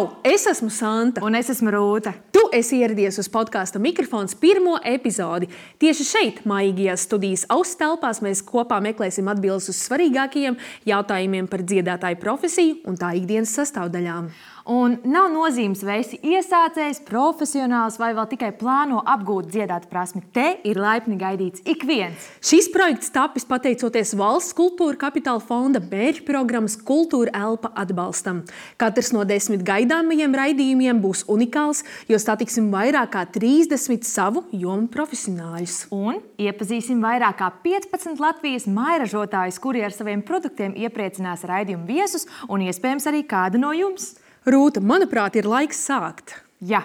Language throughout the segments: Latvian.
Čau! Es esmu Santa. Un es esmu Rūta. Tu esi ieradies uz podkāsta Mikrofons pirmo epizodi. Tieši šeit, maigajās studijas auss telpās, mēs kopā meklēsim atbildes uz svarīgākajiem jautājumiem par dziedātāju profesiju un tā ikdienas sastāvdaļām. Un nav nozīmes, vai esi iesācējs, profesionāls vai vēl tikai plāno apgūt dziedāt prasmi. Te ir laipni gaidīts ik viens. Šis projekts tapis pateicoties Valsts kultūra kapitāla fonda mērķu programmas Kultūra elpa atbalstam. Katrs no 10 gaidāmajiem raidījumiem būs unikāls, jo satiksim vairāk kā 30 savu jomu profesionāļus. Un iepazīsim vairāk kā 15 Latvijas mairažotājus, kuri ar saviem produktiem iepriecinās raidījumu viesus un iespējams arī kādu no jums. Rūta, manuprāt, ir laiks sākt. Jā,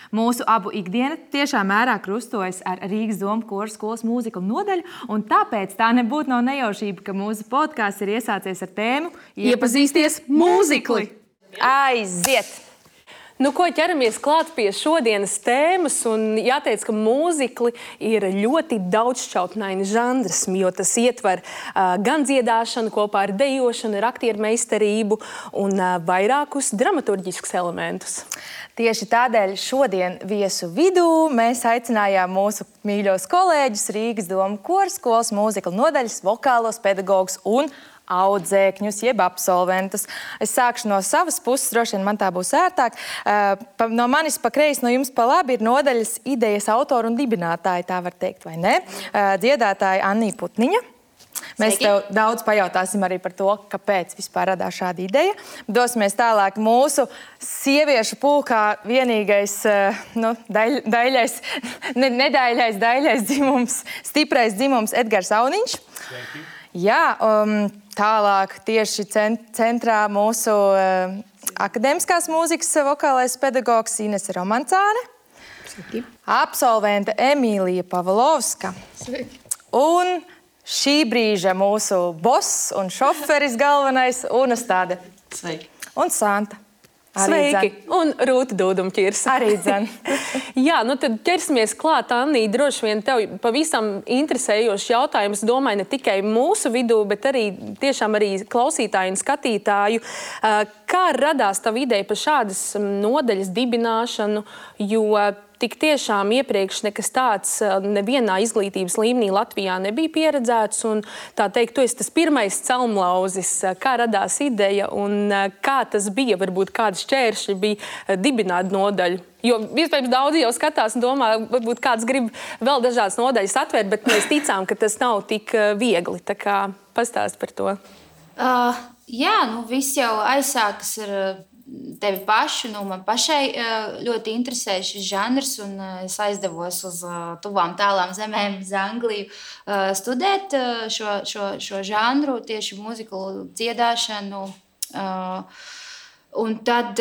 mūsu abu ikdiena tiešā mērā krustojas ar Rīgas Domu koru skolas mūziklu nodaļu, un tāpēc tā nebūtu nav nejaušība, ka mūsu podkāsts ir iesācies ar tēmu Iepazīsties mūzikli! Aiziet! Nu, ko ķeramies klāt pie šodienas tēmas, un jāteic, ka mūzikli ir ļoti daudzšķautnaini žanrs, jo tas ietver gan dziedāšanu kopā ar dejošanu, ar aktieru meistarību un vairākus dramaturģiskus elementus. Tieši tādēļ šodien viesu vidū mēs aicinājām mūsu mīļos kolēģus Rīgas Domu koru skolas mūziklu nodaļas vokālos pedagogus un audzēkņus, jeb absolventus. Es sākšu no savas puses, droši vien man tā būs ērtāk. No manis pa kreisi, no jums pa labi ir nodaļas idejas autori un dibinātāji, tā var teikt, vai ne? Dziedātāja Annija Putniņa. Mēs tev daudz pajautāsim arī par to, kāpēc vispār radās šāda ideja. Dosimies tālāk mūsu sieviešu pulkā vienīgais, daļais dzimums, stiprais dzimums Edgars Auniņš. Sveiki. Jā, tālāk tieši centrā mūsu akadēmiskās mūzikas vokālais pedagogs Inese Romancāne. Sveiki. Absolvente Emīlija Pavlovska. Sveiki. Un šī brīža mūsu boss un šoferis galvenais Unastāde. Sveiki. Un Santa. Sveiki! Un Rūta Dūdumķirs. Arī dzen. Jā, nu tad ķersimies klāt, Annī, droši vien tev pavisam interesējošs jautājums, domāju, ne tikai mūsu vidū, bet arī tiešām arī klausītāju un skatītāju. Kā radās tava ideja par šādas nodaļas dibināšanu, jo tik tiešām iepriekš nekas tāds nevienā izglītības līmenī Latvijā nebija pieredzēts, un tā teikt, tu esi tas pirmais celmlauzis, kā radās ideja un kā tas bija, varbūt kādi šķēršļi bija dibināt nodaļu. Jo iespējams daudzi jau skatās un domā, varbūt kāds grib vēl dažādas nodaļas atvērt, bet mēs ticām, ka tas nav tik viegli. Tā kā pastāst par to. Jā, viss jau aizsākas ar tevi pašu. Man pašai ļoti interesē šis žanrs, un es aizdevos uz tuvām tālām zemēm, uz Angliju, studēt šo žanru, tieši mūziklu dziedāšanu. Un tad,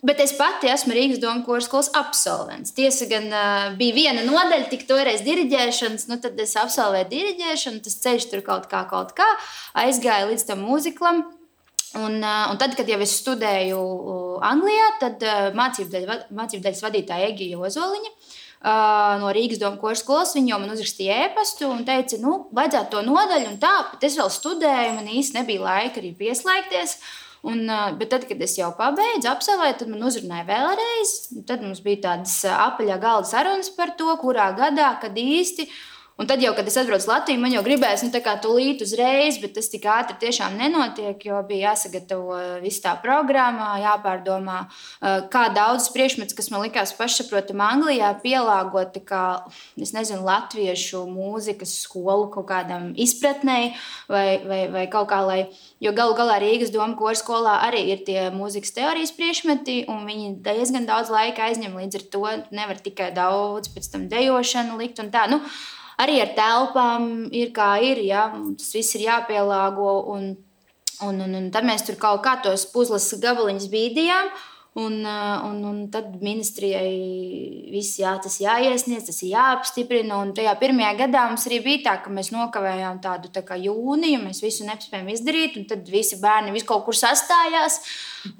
bet es pati esmu Rīgas Domu koru skolas absolvents. Tiesa gan bija viena nodaļa, tik toreiz diriģēšanas, tad es absolvēju diriģēšanu, tas ceļš tur kaut kā aizgāja līdz tam mūziklam. Un tad, kad jau es studēju Anglijā, tad mācību daļas vadītāja Egija Ozoliņa no Rīgas Domu koru skolas, viņa jau man uzrakstīja ēpastu un teica, vajadzētu to nodaļu un tā, bet es vēl studēju, man īsti nebija laika arī pieslēgties. Bet tad, kad es jau pabeidzu absolvēju, tad man uzrunāja vēlreiz. Tad mums bija tādas apaļā galda sarunas par to, kurā gadā, kad īsti. Un tad jau, kad es atbraucu Latviju, man jau gribējās tūlīt uzreiz, bet tas tik ātri tiešām nenotiek, jo bija jāsagatavo viss tā programmā, jāpārdomā, kā daudz priekšmets, kas man likās pašsaprotam Anglijā, pielāgoti kā, latviešu mūzikas skolu kaut kādam izpratnei vai kaut kā, jo galu galā Rīgas Domu koru skolā arī ir tie mūzikas teorijas priekšmeti, un viņi diezgan daudz laika aizņem, līdz ar to nevar tikai daudz pēc tam dejošanu likt un tā, Arī ar telpām ir kā ir, ja? Tas viss ir jāpielāgo, un tad mēs tur kaut kā tos puzles gabaliņus bīdījām, un tad ministrijai viss tas jāiesniedz, tas ir jāapstiprina, un tajā pirmajā gadā mums arī bija tā, ka mēs nokavējām tādu tā kā jūniju, mēs visu nespējām izdarīt, un tad visi bērni kaut kur sastājās,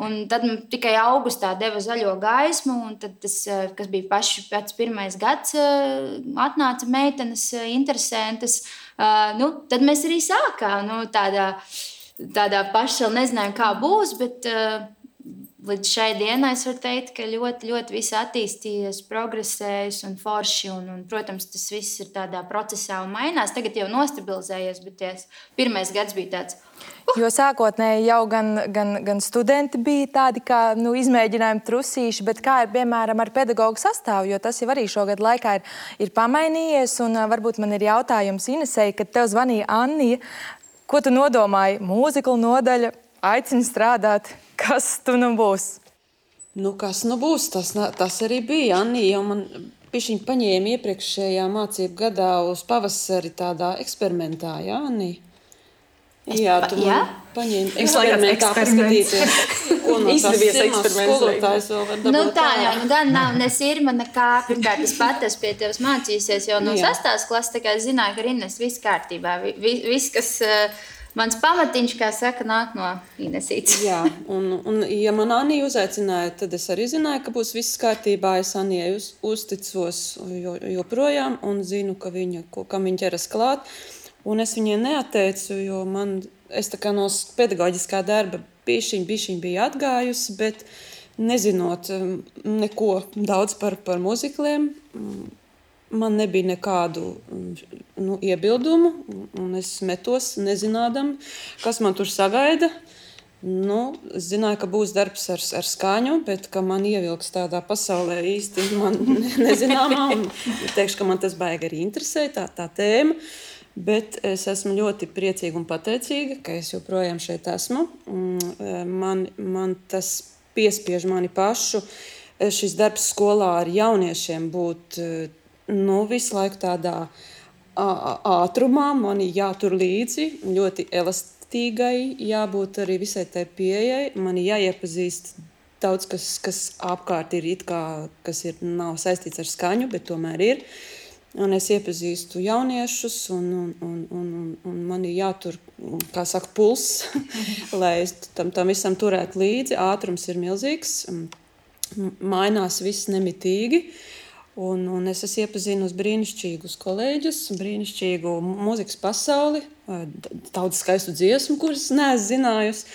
un tad tikai augustā deva zaļo gaismu, un tad tas, kas bija pats pirmais gads, atnāca meitenes interesantas, tad mēs arī sākām, tādā paša, nezinājām, kā būs, līdz šai dienai es varu teikt, ka ļoti, ļoti viss attīstījies, progresējis un forši. Un, protams, tas viss ir tādā procesā un mainās. Tagad jau nostabilizējies, bet pirmais gads bija tāds. Jo sākotnēji jau gan studenti bija tādi kā izmēģinājumi trusīši, bet kā ir piemēram ar pedagogu sastāvu, jo tas jau arī šogad laikā ir pamainījies. Un varbūt man ir jautājums Inesei, kad tev zvanīja Annija, ko tu nodomāji? Mūzikla nodaļa aicina strādāt. Kas tu būs? Kas būs? Tas arī bija. Annija jau man pišķiņ paņēma iepriekšējā mācību gadā uz pavasari tādā eksperimentā, jā, Annija? Jā, tu man paņēmi eksperimentā paskatīties, ko no tās pirmās skolotājs vēl var dabūt. Tā jau, gan nav ne sirma, nekā. Pirmkārt, es pat esmu pie tevis mācījusies jau no 6. klases, tā kā es zināju, ka Ines viss kārtībā. Viss, kas mans pamatiņš, kā saka, nāk no Inesītes. Jā, un ja man Annija uzaicināja, tad es arī zināju, ka būs viss kārtībā. Es Annijai uzticos joprojām un zinu, kam viņa ķeras klāt. Un es viņai neatteicu, jo es tā kā no pedagoģiskā darba bišķiņ bija atgājusi, bet nezinot neko daudz par muzikliem, man nebija nekādu iebildumu, un es metos nezinādam, kas man tur sagaida. Es zināju, ka būs darbs ar skaņu, bet ka man ievilks tādā pasaulē īsti man nezināmā, un teikšu, ka man tas baigi arī interesē, tā tēma. Bet es esmu ļoti priecīga un pateicīga, ka es joprojām šeit esmu. Man tas piespiež mani pašu. Šis darbs skolā ar jauniešiem būt visu laiku tādā ātrumā. Man jātur līdzi, ļoti elastīgai, jābūt arī visai tai pieejai. Man jāiepazīst daudz, kas apkārt ir kas nav saistīts ar skaņu, bet tomēr ir. Un es iepazīstu jauniešus, un man ir jātur, kā saka, pulss, lai es tam visam turētu līdzi. Ātrums ir milzīgs, mainās viss nemitīgi. Un es esmu iepazinusi brīnišķīgus kolēģus, brīnišķīgu mūzikas pasauli, daudz skaistu dziesmu, kuras neesmu zinājusi.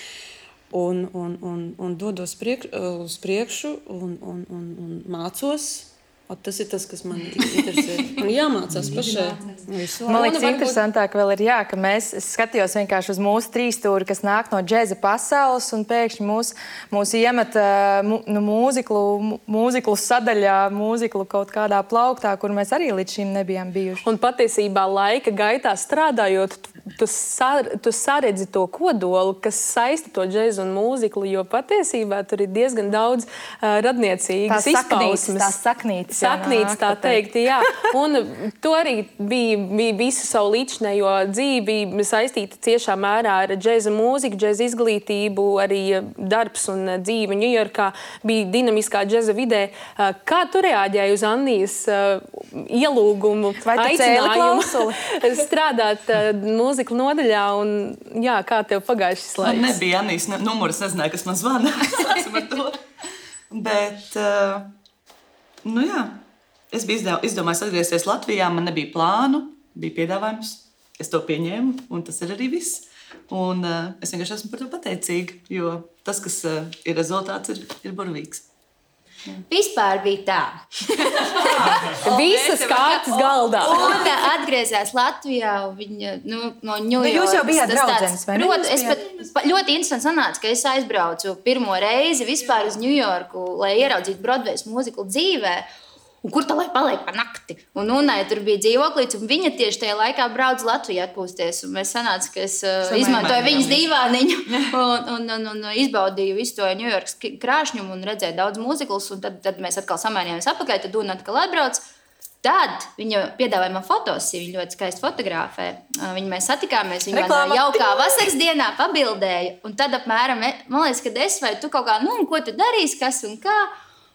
Un dodos uz priekšu un mācos. Tas ir tas, kas man interesē. Man jāmācās pašai. Man liekas, interesantāk vēl ir, ka es skatījos vienkārši uz mūsu trīsstūri, kas nāk no džeza pasaules, un pēkšņi mūs iemet mūziklu sadaļā, mūziklu kaut kādā plauktā, kur mēs arī līdz šim nebijām bijuši. Un patiesībā laika gaitā strādājot, tu saredzi to kodolu, kas saista to džezu un mūziklu, jo patiesībā tur ir diezgan daudz radniecīgas izpausmes. Tās saknītes. Saknīts, tā teikt, jā. Un to arī bija visu savu līdzinējo dzīvi saistīta ciešā mērā ar džeza mūziku, džeza izglītību, arī darbs un dzīve Ņujorkā bija dinamiskā džeza vidē. Kā tu reaģēji uz Annijas ielūgumu, aicinājumu strādāt mūzikla nodaļā? Un, jā, kā tev pagāja šis laiks? Man nebija Annijas numurs, nezināju, kas man zvana. Sāksim ar to. Bet... jā, es biju izdomājis atgriezties Latvijā, man nebija plānu, bija piedāvājums, es to pieņēmu, un tas ir arī viss. Un es vienkārši esmu par to pateicīga, jo tas, kas ir rezultāts, ir burvīgs. Vispār bija tā. Visas kārtas galdā. Un atgriezās Latvijā, viņa no Ņujorkas. Jūs jau bijāt draudzenes, vai ne? Es ļoti interesanti sanāca, ka es aizbraucu pirmo reizi vispār uz Ņujorku, lai ieraudzītu Broadways mūziklu dzīvē. Un kur tā lai paliek pa nakti? Un Unai tur bija dzīvoklīts, un viņa tieši tajā laikā brauc Latvijā atpūsties. Un mēs sanāca, ka es izmantoju viņas dīvāniņu un izbaudīju visu to Ņujorkas krāšņumu un redzēju daudz mūziklus. Un tad mēs atkal samainījāmies apakaļ, tad Una atkal atbrauc. Tad viņa piedāvāja man fotosiju, viņa ļoti skaisti fotografē. Viņu mēs satikāmies, viņa man jaukā vasaras dienā pabildēja. Un tad apmēram, man liekas, kad es vai tu kaut kā, ko tu darīsi, kas un kā.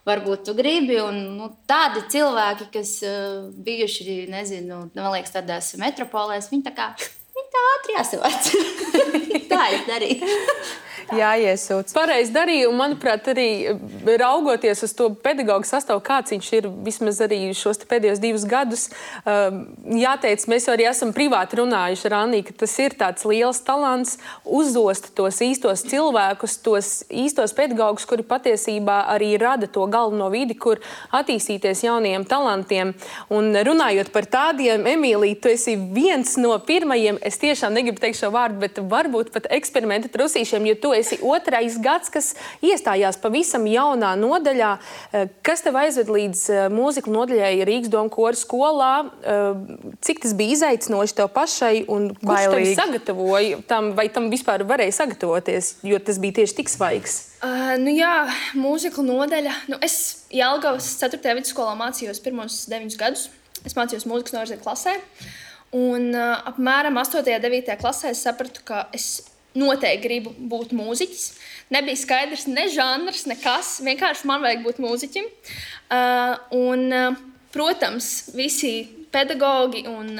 Varbūt tu gribi, un tādi cilvēki, kas bijuši, nezinu, man liekas, tādās metropolēs, viņi tā ātri jāsavāc. Tā es darīju. jāiesūc. Pareizi darīja, un manuprāt, arī raugoties uz to pedagoģu sastāvu, kāds viņš ir vismaz arī šos pēdējos 2 gadus, jāteic, mēs arī esam privāti runājuši ar Anniju, ka tas ir tāds liels talants uzzost tos īstos cilvēkus, tos īstos pedagogus, kuri patiesībā arī rada to galveno vidi, kur attīstīties jauniem talantiem. Un runājot par tādiem, Emīlija, tu esi viens no pirmajiem, es tiešām negribu teikt šo vārdu, bet varbūt pat eksperimenta trusīšiem, jo tu esi 2. gads, kas iestājās pavisam jaunā nodaļā. Kas tev aizved līdz mūziklu nodaļai Rīgas Doma koru skolā? Cik tas bija izaicinoši tev pašai un kurš tev sagatavoja tam, vai tam vispār varēja sagatavoties, jo tas bija tieši tik svaigs? Mūziklu nodaļa. Es Jelgavas 4. vidusskolā mācījos pirmos 9 gadus. Es mācījos mūzikas novirzietu klasē. Un apmēram 8. un 9. klasē es sapratu, ka es noteikti gribu būt mūziķis. Nebija skaidrs ne žanrs, nekas. Vienkārši man vajag būt mūziķim. Protams, visi pedagogi un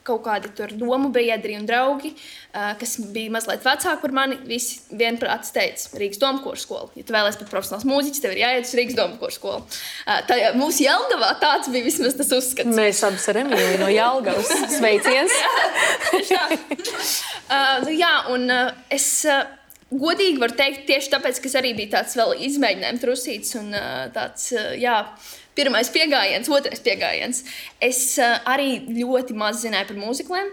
kaut kādi tur domu biedri un draugi, kas bija mazliet vecāki par mani, visi vienprātis teica, Rīgas Doma koru skola. Ja tu vēlies būt profesionāls mūziķis, tev ir jāiet uz Rīgas Doma koru skolu. Mūsu Jelgavā tāds bija vismaz tas uzskats. Mēs abas ar Emīliju no Jelgavas. Sveiciens! Es godīgi varu teikt tieši tāpēc, ka es arī biju tāds vēl izmēģinājums trusīts un tāds, pirmais piegājiens, otrais piegājiens. Es arī ļoti maz zināju par mūzikliem.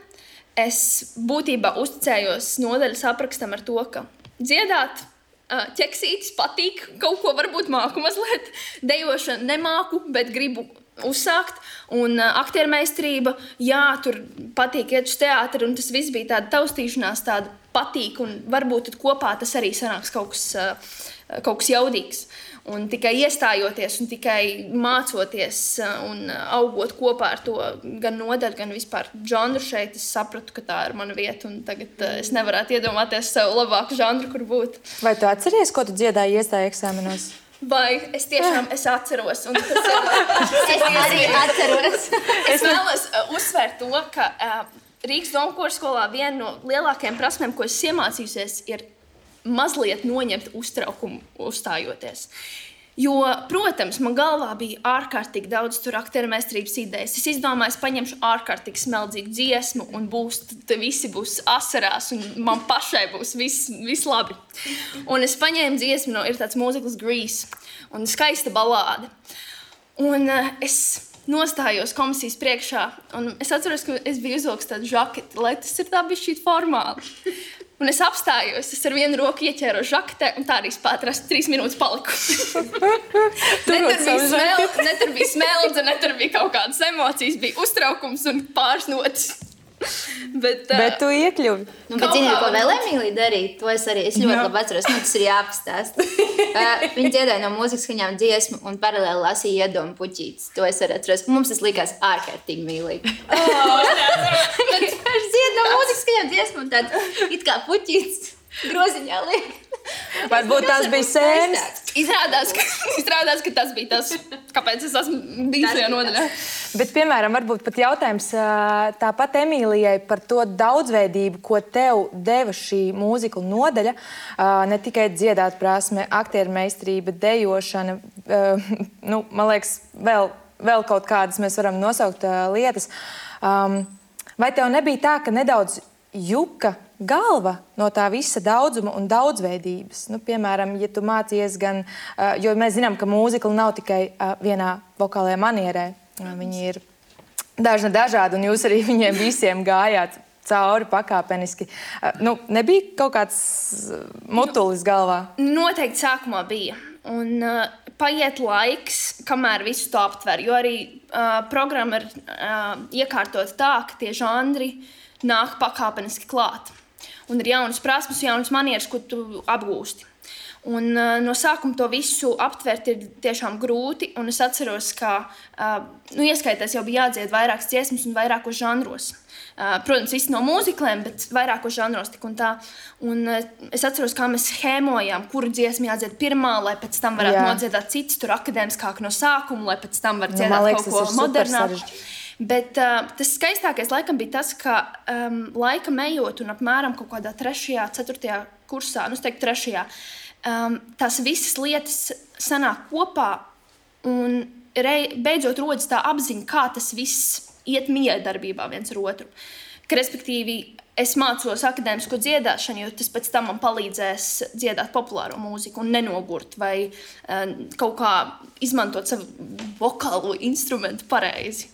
Es būtībā uzticējos nodaļas aprakstam ar to, ka dziedāt, ķeksītis patīk, kaut ko varbūt māku mazliet, dejošanu nemāku, bet gribu uzsākt. Un aktiermeistarība, tur patīk iet uz teātri, un tas viss bija tāda taustīšanās, tāda patīk, un varbūt tad kopā tas arī sanāks kaut kas jaudīgs. Un tikai iestājoties un tikai mācoties un augot kopā ar to gan nodaļu, gan vispār žanru šeit, es sapratu, ka tā ir mana vieta. Un tagad es nevarētu iedomāties sev labāku žanru, kur būt. Vai tu atceries, ko tu dziedāji iestāju eksāmenos? Vai es tiešām atceros. Un tas es arī atceros. Es vēlos uzsvērt to, ka Rīgas Doma koru skolā viena no lielākajām prasmēm, ko es iemācījusies, ir mazliet noņemt uztraukumu uzstājoties. Jo, protams, man galvā bija ārkārtīgi daudz aktiermeistarības idejas. Es izdomāju, es paņemšu ārkārtīgi smeldzīgu dziesmu un visi būs asarās un man pašai būs viss labi. Un es paņēmu dziesmu, ir tāds mūzikls Grease un skaista balāde. Un es nostājos komisijas priekšā un es atceros, ka es biju uzvilks tādu žaketi, lai tas ir tā bišķīt formāli. Un es apstājos, es ar vienu roku ieķēru žaketē, un tā arī spētrās 3 minūtes paliku. Ne tur bija smeldze, ne tur bija kaut kādas emocijas, bija uztraukums un pāris notis. Bet tu iekļuvi. Bet zini, ko vēl Emīlija darīja? To es ļoti labi atceros, tas ir jāapstāst. Viņa dziedāja no mūzikas skaņām dziesmu un paralēli lasīja iedomu puķītes. To es arī atceros. Mums tas likās ārkārtīgi mīlīgi. Viņš dzied no mūzikas skaņām dziesmu un tad it kā puķītes groziņā liek. Varbūt tās bija sēnes. Izrādās, ka tas bija tas, kāpēc es esmu bijis šajā nodaļā. Bet, piemēram, varbūt pat jautājums tāpat Emīlijai par to daudzveidību, ko tev deva šī mūziklu nodaļa. Ne tikai dziedāt prasme, aktiermeistarība, dejošana, man liekas, vēl kaut kādas mēs varam nosaukt lietas. Vai tev nebija tā, ka nedaudz juka galva no tā visa daudzuma un daudzveidības? Piemēram, ja tu mācies gan, jo mēs zinām, ka mūzikla nav tikai vienā vokālajā manierē. Viņi ir dažādi, un jūs arī viņiem visiem gājāt cauri pakāpeniski. Nebija kaut kāds mutulis galvā? Noteikti sākumā bija. Un paiet laiks, kamēr visu to aptver, jo arī programma ir iekārtota tā, ka tie žanri nāk pakāpeniski klāt. Un ir jaunas prasmes, jaunas manieres, ko tu apgūsti. Un no sākuma to visu aptvert ir tiešām grūti, un es atceros, ka ieskaitēs jau bija jādzied vairākas dziesmas un vairākos žanros. Protams, visi no mūzikliem, bet vairākos žanros tik un tā. Un es atceros, kā mēs schēmojām, kuru dziesmu jādzied pirmā, lai pēc tam varētu nodziedāt citas, tur akadēmiskāk no sākuma, lai pēc tam var dziedāt kaut ko modernāk. Bet tas skaistākais laikam bija tas, ka laika ejot un apmēram kaut kādā 3., 4. kursā, es teiktu 3. Tās visas lietas sanāk kopā un beidzot rodas tā apziņa, kā tas viss iet miedarbībā viens ar otru. Ka, respektīvi, es mācos akadēmisko dziedāšanu, jo tas pēc tam man palīdzēs dziedāt populāro mūziku un nenogurt vai kaut kā izmantot savu vokālo instrumentu pareizi.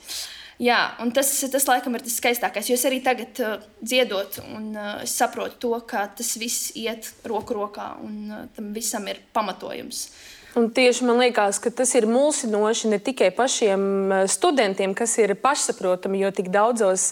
Jā, un tas laikam ir tas skaistākais, jo es arī tagad dziedot un es saprotu to, ka tas viss iet roku rokā un tam visam ir pamatojums. Un tieši man liekas, ka tas ir mulsinoši ne tikai pašiem studentiem, kas ir pašsaprotami, jo tik daudzas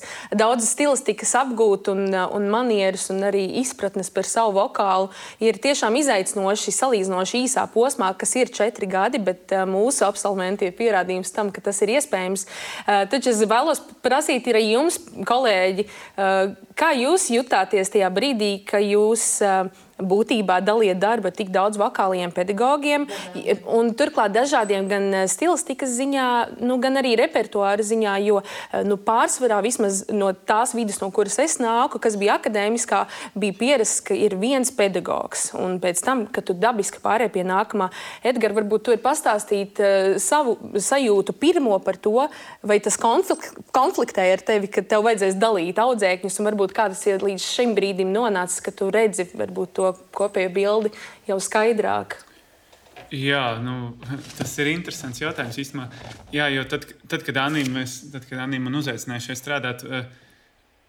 stilistikas apgūt un manieres un arī izpratnes par savu vokālu ir tiešām izaicinoši salīdzinoši īsā posmā, kas ir 4 gadi, bet mūsu absolventi ir pierādījums tam, ka tas ir iespējams. Taču es vēlos prasīt arī jums, kolēģi, kā jūs jutāties tajā brīdī, ka jūs būtībā daliet darbu tik daudz vokāliem pedagogiem un turklāt dažādiem gan stilistikas ziņā, gan arī repertuāra ziņā, jo pārsvarā vismaz no tās vidas, no kuras es nāku, kas bija akadēmiskā, bija pierasts, ka ir viens pedagogs. Un pēc tam, kad tu dabiski pārēj pie nākamā, Edgar, varbūt tu ir pastāstīt savu sajūtu pirmo par to, vai tas konfliktē ar tevi, ka tev vajadzēs dalīt audzēkņus, un varbūt kā tas ir līdz šim brīdim nonācis, ka tu redzi varbūt to kopējo bildi jau skaidrāk. Jā, tas ir interesants jautājums īstenībā. Jā, jo tad, kad Anī man uzaicināja šeit strādāt,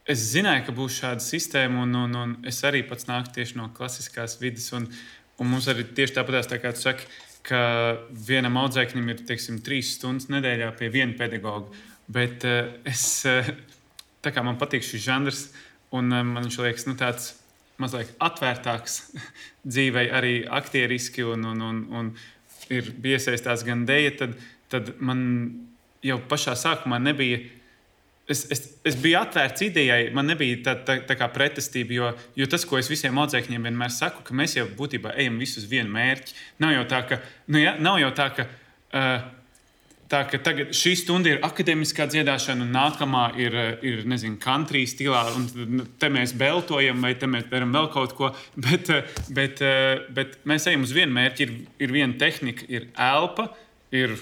es zināju, ka būs šāda sistēma, un es arī pats nāku tieši no klasiskās vidas, un mums arī tieši tāpatās, tā kā tu saki, ka vienam audzēknim ir, 3 stundas nedēļā pie viena pedagoga, bet tā kā man patīk šis žanrs, un man viņš liekas, tāds mazliet atvērtāks dzīvei, arī aktieriski, un ir iesaistās gan deja, tad man jau pašā sākumā nebija. Es biju atvērts idejai, man nebija tā kā pretestība, jo tas, ko es visiem audzēkņiem vienmēr saku, ka mēs jau būtībā ejam visus vienu mērķi. Nav jau tā, ka tagad šī stunda ir akadēmiskā dziedāšana, un nākamā ir country stilā, un te mēs beltojam, vai te mēs darām vēl kaut ko, bet mēs ejam uz vienu mērķi, ir viena tehnika, ir elpa, ir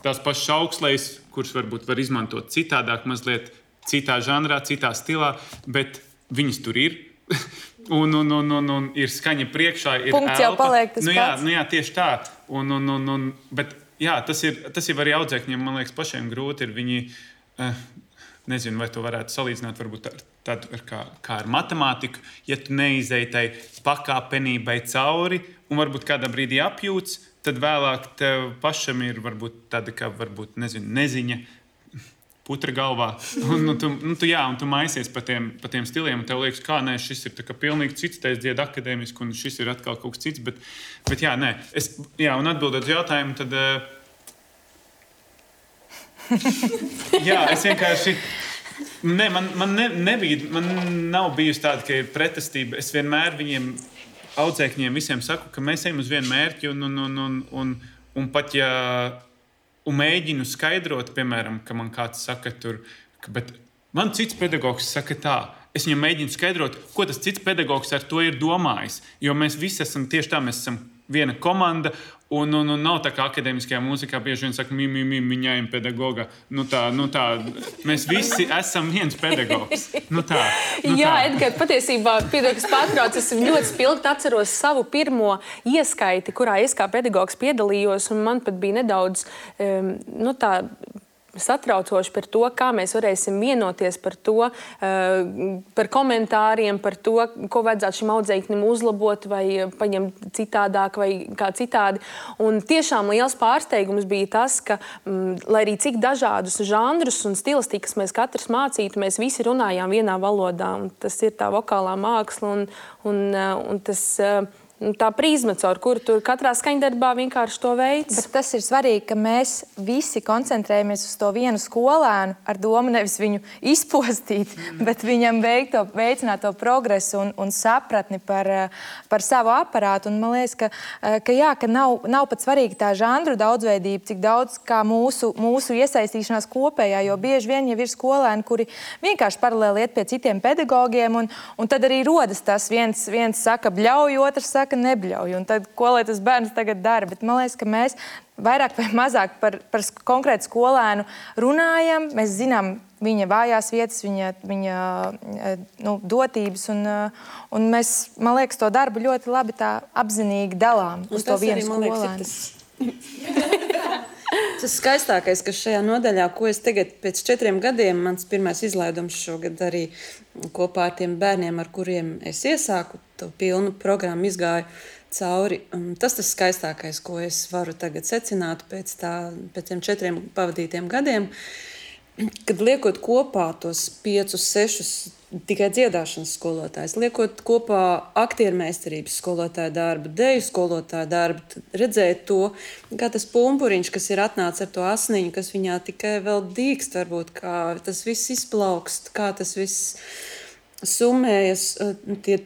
tās pašas augstlejas, kuras varbūt var izmantot citādāk, mazliet citā žanrā, citā stilā, bet viņas tur ir. Un ir skaņa priekšā, ir punkts elpa. Jau paliek tas pats. Jā, tieši tā. Bet jā, tas ir arī audzēkņiem, man liekas, pašiem grūti ir viņi, nezinu, vai to varētu salīdzināt varbūt tādu kā ar matemātiku, ja tu neizej tai pakāpenībai cauri un varbūt kādā brīdī apjūts, tad vēlāk tev pašam ir varbūt tāda kā, neziņa putra galvā. Un tu maisies pa tiem stiliem, un tev liekas, kā nē, šis ir tā kā pilnīgi cits, te es dziedu akadēmiski, un šis ir atkal kaut kas cits, bet jā, nē. Un atbildot uz jautājumu, tad jā, es vienkārši man nav bijusi tāda, ka ir pretestība. Es vienmēr viņiem audzēkņiem visiem saku, ka mēs ejam uz vienu mērķi, un pat ja un mēģinu skaidrot, piemēram, ka man kāds saka tur, bet man cits pedagogs saka tā. Es viņam mēģinu skaidrot, ko tas cits pedagogs ar to ir domājis. Jo mēs visi esam tieši tā, mēs esam viena komanda, un nav tā kā akadēmiskajā mūzikā bieži vien saka, miņājam pedagoga. Tā, mēs visi esam viens pedagogs. Jā, Edgar, patiesībā, piedod, kas pārtrauc, es ļoti spilgti atceros savu pirmo ieskaiti, kurā es kā pedagogs piedalījos, un man pat bija nedaudz, satraucoši par to, kā mēs varēsim vienoties par to, par komentāriem, par to, ko vajadzētu šim audzēknim uzlabot vai paņemt citādāk vai kā citādi. Un tiešām liels pārsteigums bija tas, ka, lai arī cik dažādus žanrus un stilistikas mēs katrs mācītu, mēs visi runājām vienā valodā. Un tas ir tā vokālā māksla un tas tā prizma, caur kuru tur katrā skaņdarbā vienkārši to veids. Bet tas ir svarīgi, ka mēs visi koncentrējamies uz to vienu skolēnu ar domu nevis viņu izpostīt, bet viņam veicināt to progresu un sapratni par savu aparātu. Un man liekas, ka nav pat svarīgi tā žanru daudzveidība, cik daudz kā mūsu iesaistīšanās kopējā, jo bieži vien jau ir skolēni, kuri vienkārši paralēli iet pie citiem pedagogiem, un tad arī rodas tas viens saka bļauj, otrs saka nebļauj. Un tad, ko lai tas bērns tagad dara? Bet man liekas, ka mēs vairāk vai mazāk par konkrētu skolēnu runājam. Mēs zinām viņa vājās vietas, viņa dotības, un mēs, man liekas, to darbu ļoti labi tā apzinīgi dalām uz to vienu skolēnu. Tas skaistākais, kas šajā nodaļā, ko es tagad pēc 4 gadiem, mans pirmais izlaidums šogad arī kopā ar tiem bērniem, ar kuriem es iesāku, to pilnu programmu izgāju cauri. Tas skaistākais, ko es varu tagad secināt pēc tiem 4 pavadītiem gadiem, kad liekot kopā tos 5, 6 tikai dziedāšanas skolotājs, liekot kopā aktiermeistarības skolotāja darbu, deju skolotāja darbu, redzēt to, kā tas pumpuriņš, kas ir atnācis ar to asniņu, kas viņā tikai vēl dīkst, varbūt, kā tas viss izplaukst, kā tas viss summējas,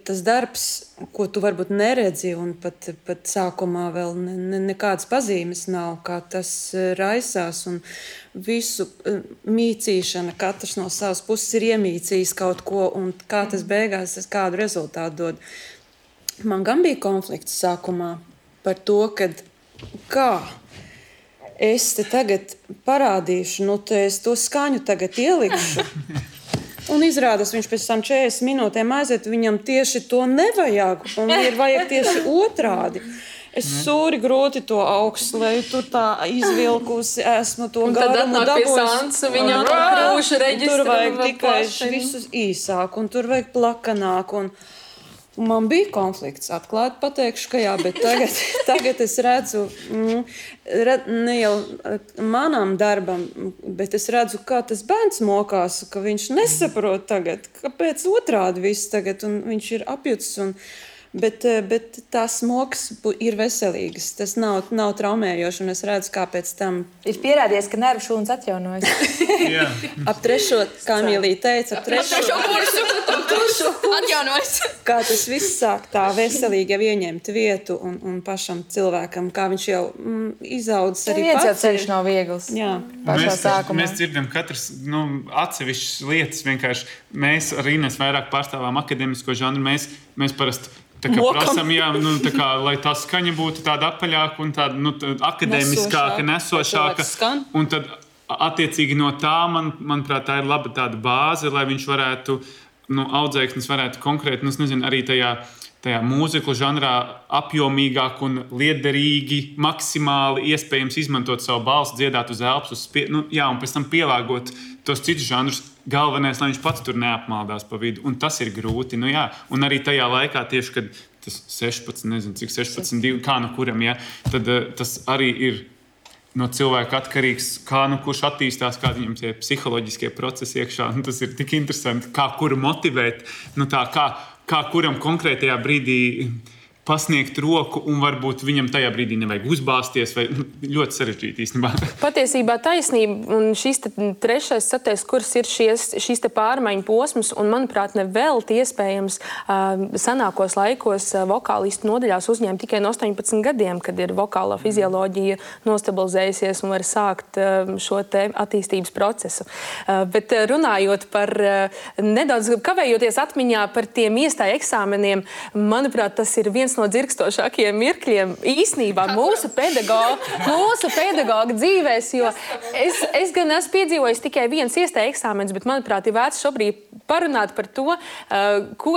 tas darbs, ko tu varbūt neredzi, un pat sākumā vēl nekādas pazīmes nav, kā tas raisās, un visu mīcīšana, katrs no savas puses ir iemīcījis kaut ko, un kā tas beigās kādu rezultātu dod. Man gan bija konflikts sākumā par to, kā es te tagad parādīšu, te es to skaņu tagad ielikšu, un izrādās, viņš pēc tam 40 minūtēm aiziet, viņam tieši to nevajag, un ir vajag tieši otrādi. Es sūri grūti to augstleju, tur tā izvilkusi, esmu to garumu dabūjusi. Viņam krūša reģistra. Tur vajag tikai visus īsāk, un tur vajag plakanāk, un man bija konflikts, atklāti pateikšu, ka jā, bet tagad es redzu, ne jau manam darbam, bet es redzu, kā tas bērns mokās, ka viņš nesaprot tagad, kāpēc otrādi viss tagad, un viņš ir apjucis, bet tās mokas ir veselīgas, tas nav traumējoši, un es redzu, kāpēc tam ir pierādījies, ka nervu šūnas atjaunojas. Ap 3, kā Emīlija teica, ap 3. kursu atjaunojas. Kā tas viss sāk tā veselīgi jau ieņemt vietu un pašam cilvēkam, kā viņš jau izaudzis arī pats. Viens jau ceļš nav viegls. Jā. Pašā sākumā. Mēs dzirdam katrs atsevišķas lietas vienkārši. Mēs ar Ines vairāk pārstāvām akadēmisko žanru. Mēs parasti prasam, lai tā skaņa būtu tāda apaļāka un tāda akadēmiskāka, nesošāka. Un tad, attiecīgi no tā, manuprāt, tā ir laba tāda bāze, lai viņš varētu, audzēknis varētu konkrēti, arī tajā mūziklu žanrā apjomīgāk un liederīgi, maksimāli iespējams izmantot savu balsi, dziedāt uz elpas, un pēc tam pielāgot tos citus žanrus. Galvenais, lai viņš pats tur neapmaldās pa vidu, un tas ir grūti. Un arī tajā laikā, tieši kad tas 16, nezinu, cik 16, kā kuram, tad tas arī ir no cilvēka atkarīgs, kā kurš attīstās, kādi viņam tie psiholoģiskie procesi iekšā. Tas ir tik interesanti, kā kuru motivēt, kā kuram konkrētajā brīdī pasniegt roku, un varbūt viņam tajā brīdī nevajag uzbāzties, vai ļoti sarežģīti īstenībā. Patiesībā taisnība, un šis 3., 4. kurs ir šīs pārmaiņu posms, un, manuprāt, nevelti iespējams senākos laikos vokālistu nodaļās uzņēma tikai no 18 gadiem, kad ir vokālā fizioloģija nostabilizējusies un var sākt šo te attīstības procesu. Bet runājot par nedaudz kavējoties atmiņā par tiem iestāju eksāmeniem, manuprāt, tas ir viens no dzirkstošākajiem mirkļiem īsnībā mūsu pedagoga dzīvēs, jo es gan esmu piedzīvojis tikai viens iestāju eksāmens, bet, manuprāt, ir vērts šobrīd parunāt par to, ko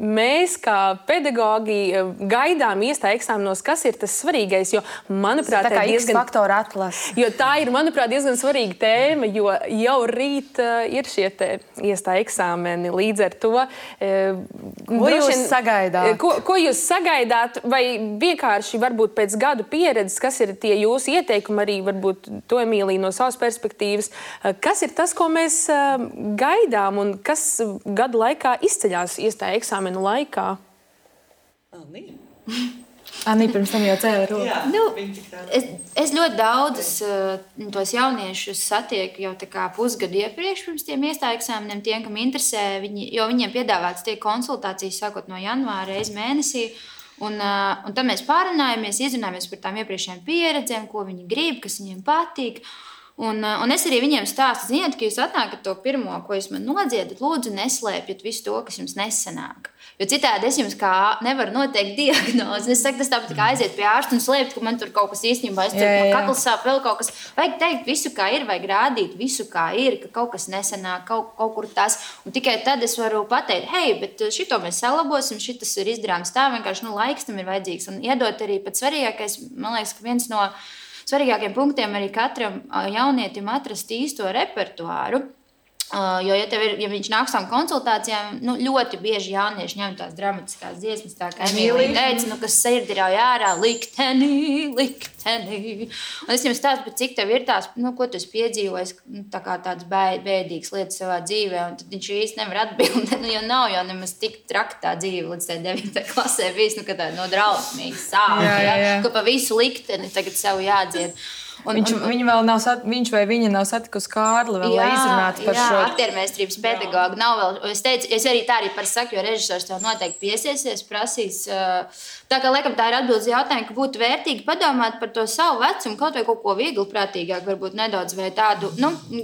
mēs kā pedagogi gaidām iestāju eksāmenos, kas ir tas svarīgais, jo, manuprāt, tā kā X-faktora atlase. Jo tā ir, manuprāt, diezgan svarīga tēma, jo jau rīt ir šie iestāju eksāmeni. Līdz ar to, ko jūs sagaidāt? Ko jūs sagaidāt? Vai vienkārši varbūt pēc gadu pieredzes, kas ir tie jūsu ieteikumi, arī varbūt to Emīlija no savas perspektīvas, kas ir tas, ko mēs gaidām un kas gadu laikā izceļās iestāju eksāmenu laikā? Anī pirms tam jau cēla roku. Jā, Nu, viņi tik tā. Es ļoti daudzus tos jauniešus satieku jau tā kā pusgadu iepriekš pirms tiem iestāju eksāmeniem, tiem, kam interesē, jo viņiem piedāvāts tiek konsultācijas sākot no janvāra reizi mēnesī. Un tad mēs pārunājamies, izrunājamies par tām iepriekšējām pieredzēm, ko viņi grib, kas viņiem patīk. Un es arī viņiem stāstu, ziniet, ka jūs atnākat to pirmo, ko jūs man nodziedat, lūdzu, neslēpjat visu to, kas jums nesanāk. Jo citādi es jums kā nevaru noteikt diagnozi. Es saku, tas tāpat kā aiziet pie ārsta un slēpt, ka man tur kaut kas īstenībā man kakls sāp, vēl kaut kas. Vajag teikt visu, kā ir, vajag rādīt visu, kā ir, ka kaut kas nesanāk, kaut kur tas. Un tikai tad es varu pateikt, hei, bet šito mēs salabosim, šitas ir izdarāms tā, vienkārši laiks tam ir vajadzīgs. Un iedot arī pats svarīgākais, man liekas, ka viens no svarīgākiem punktiem arī katram jaunietim atrast īsto repertuāru. Jo, ja viņš nāk uz konsultācijām, ļoti bieži jaunieši ņem tās dramatiskās dziesmas, tā kā Emīlija teica, kas sirdi ir ārā, likteni. Un es jums stāstu, cik tev ir tās, ko tu esi piedzīvojis, tā kā tāds bēdīgs lietas savā dzīvē, un tad viņš īsti nevar atbildēt, jo nav jau nemaz tik traki tā dzīve līdz 9. klasē bijis, ka tā no drausmīgi sāp, ka pa visu likteni tagad sev jādzied. Viņa vēl nav, viņš vai viņa nav satikusi Kārli, lai izrunātu par šo. Jā, aktiermēstrības pedagogu nav vēl. Es teicu, es arī tā arī par saku, jo režisors tev noteikti piesiesies, prasīs. Tā kā, laikam, tā ir atbildes jautājumi, ka būtu vērtīgi padomāt par to savu vecumu, kaut vai kaut ko viegli prātīgāk, varbūt nedaudz vai tādu,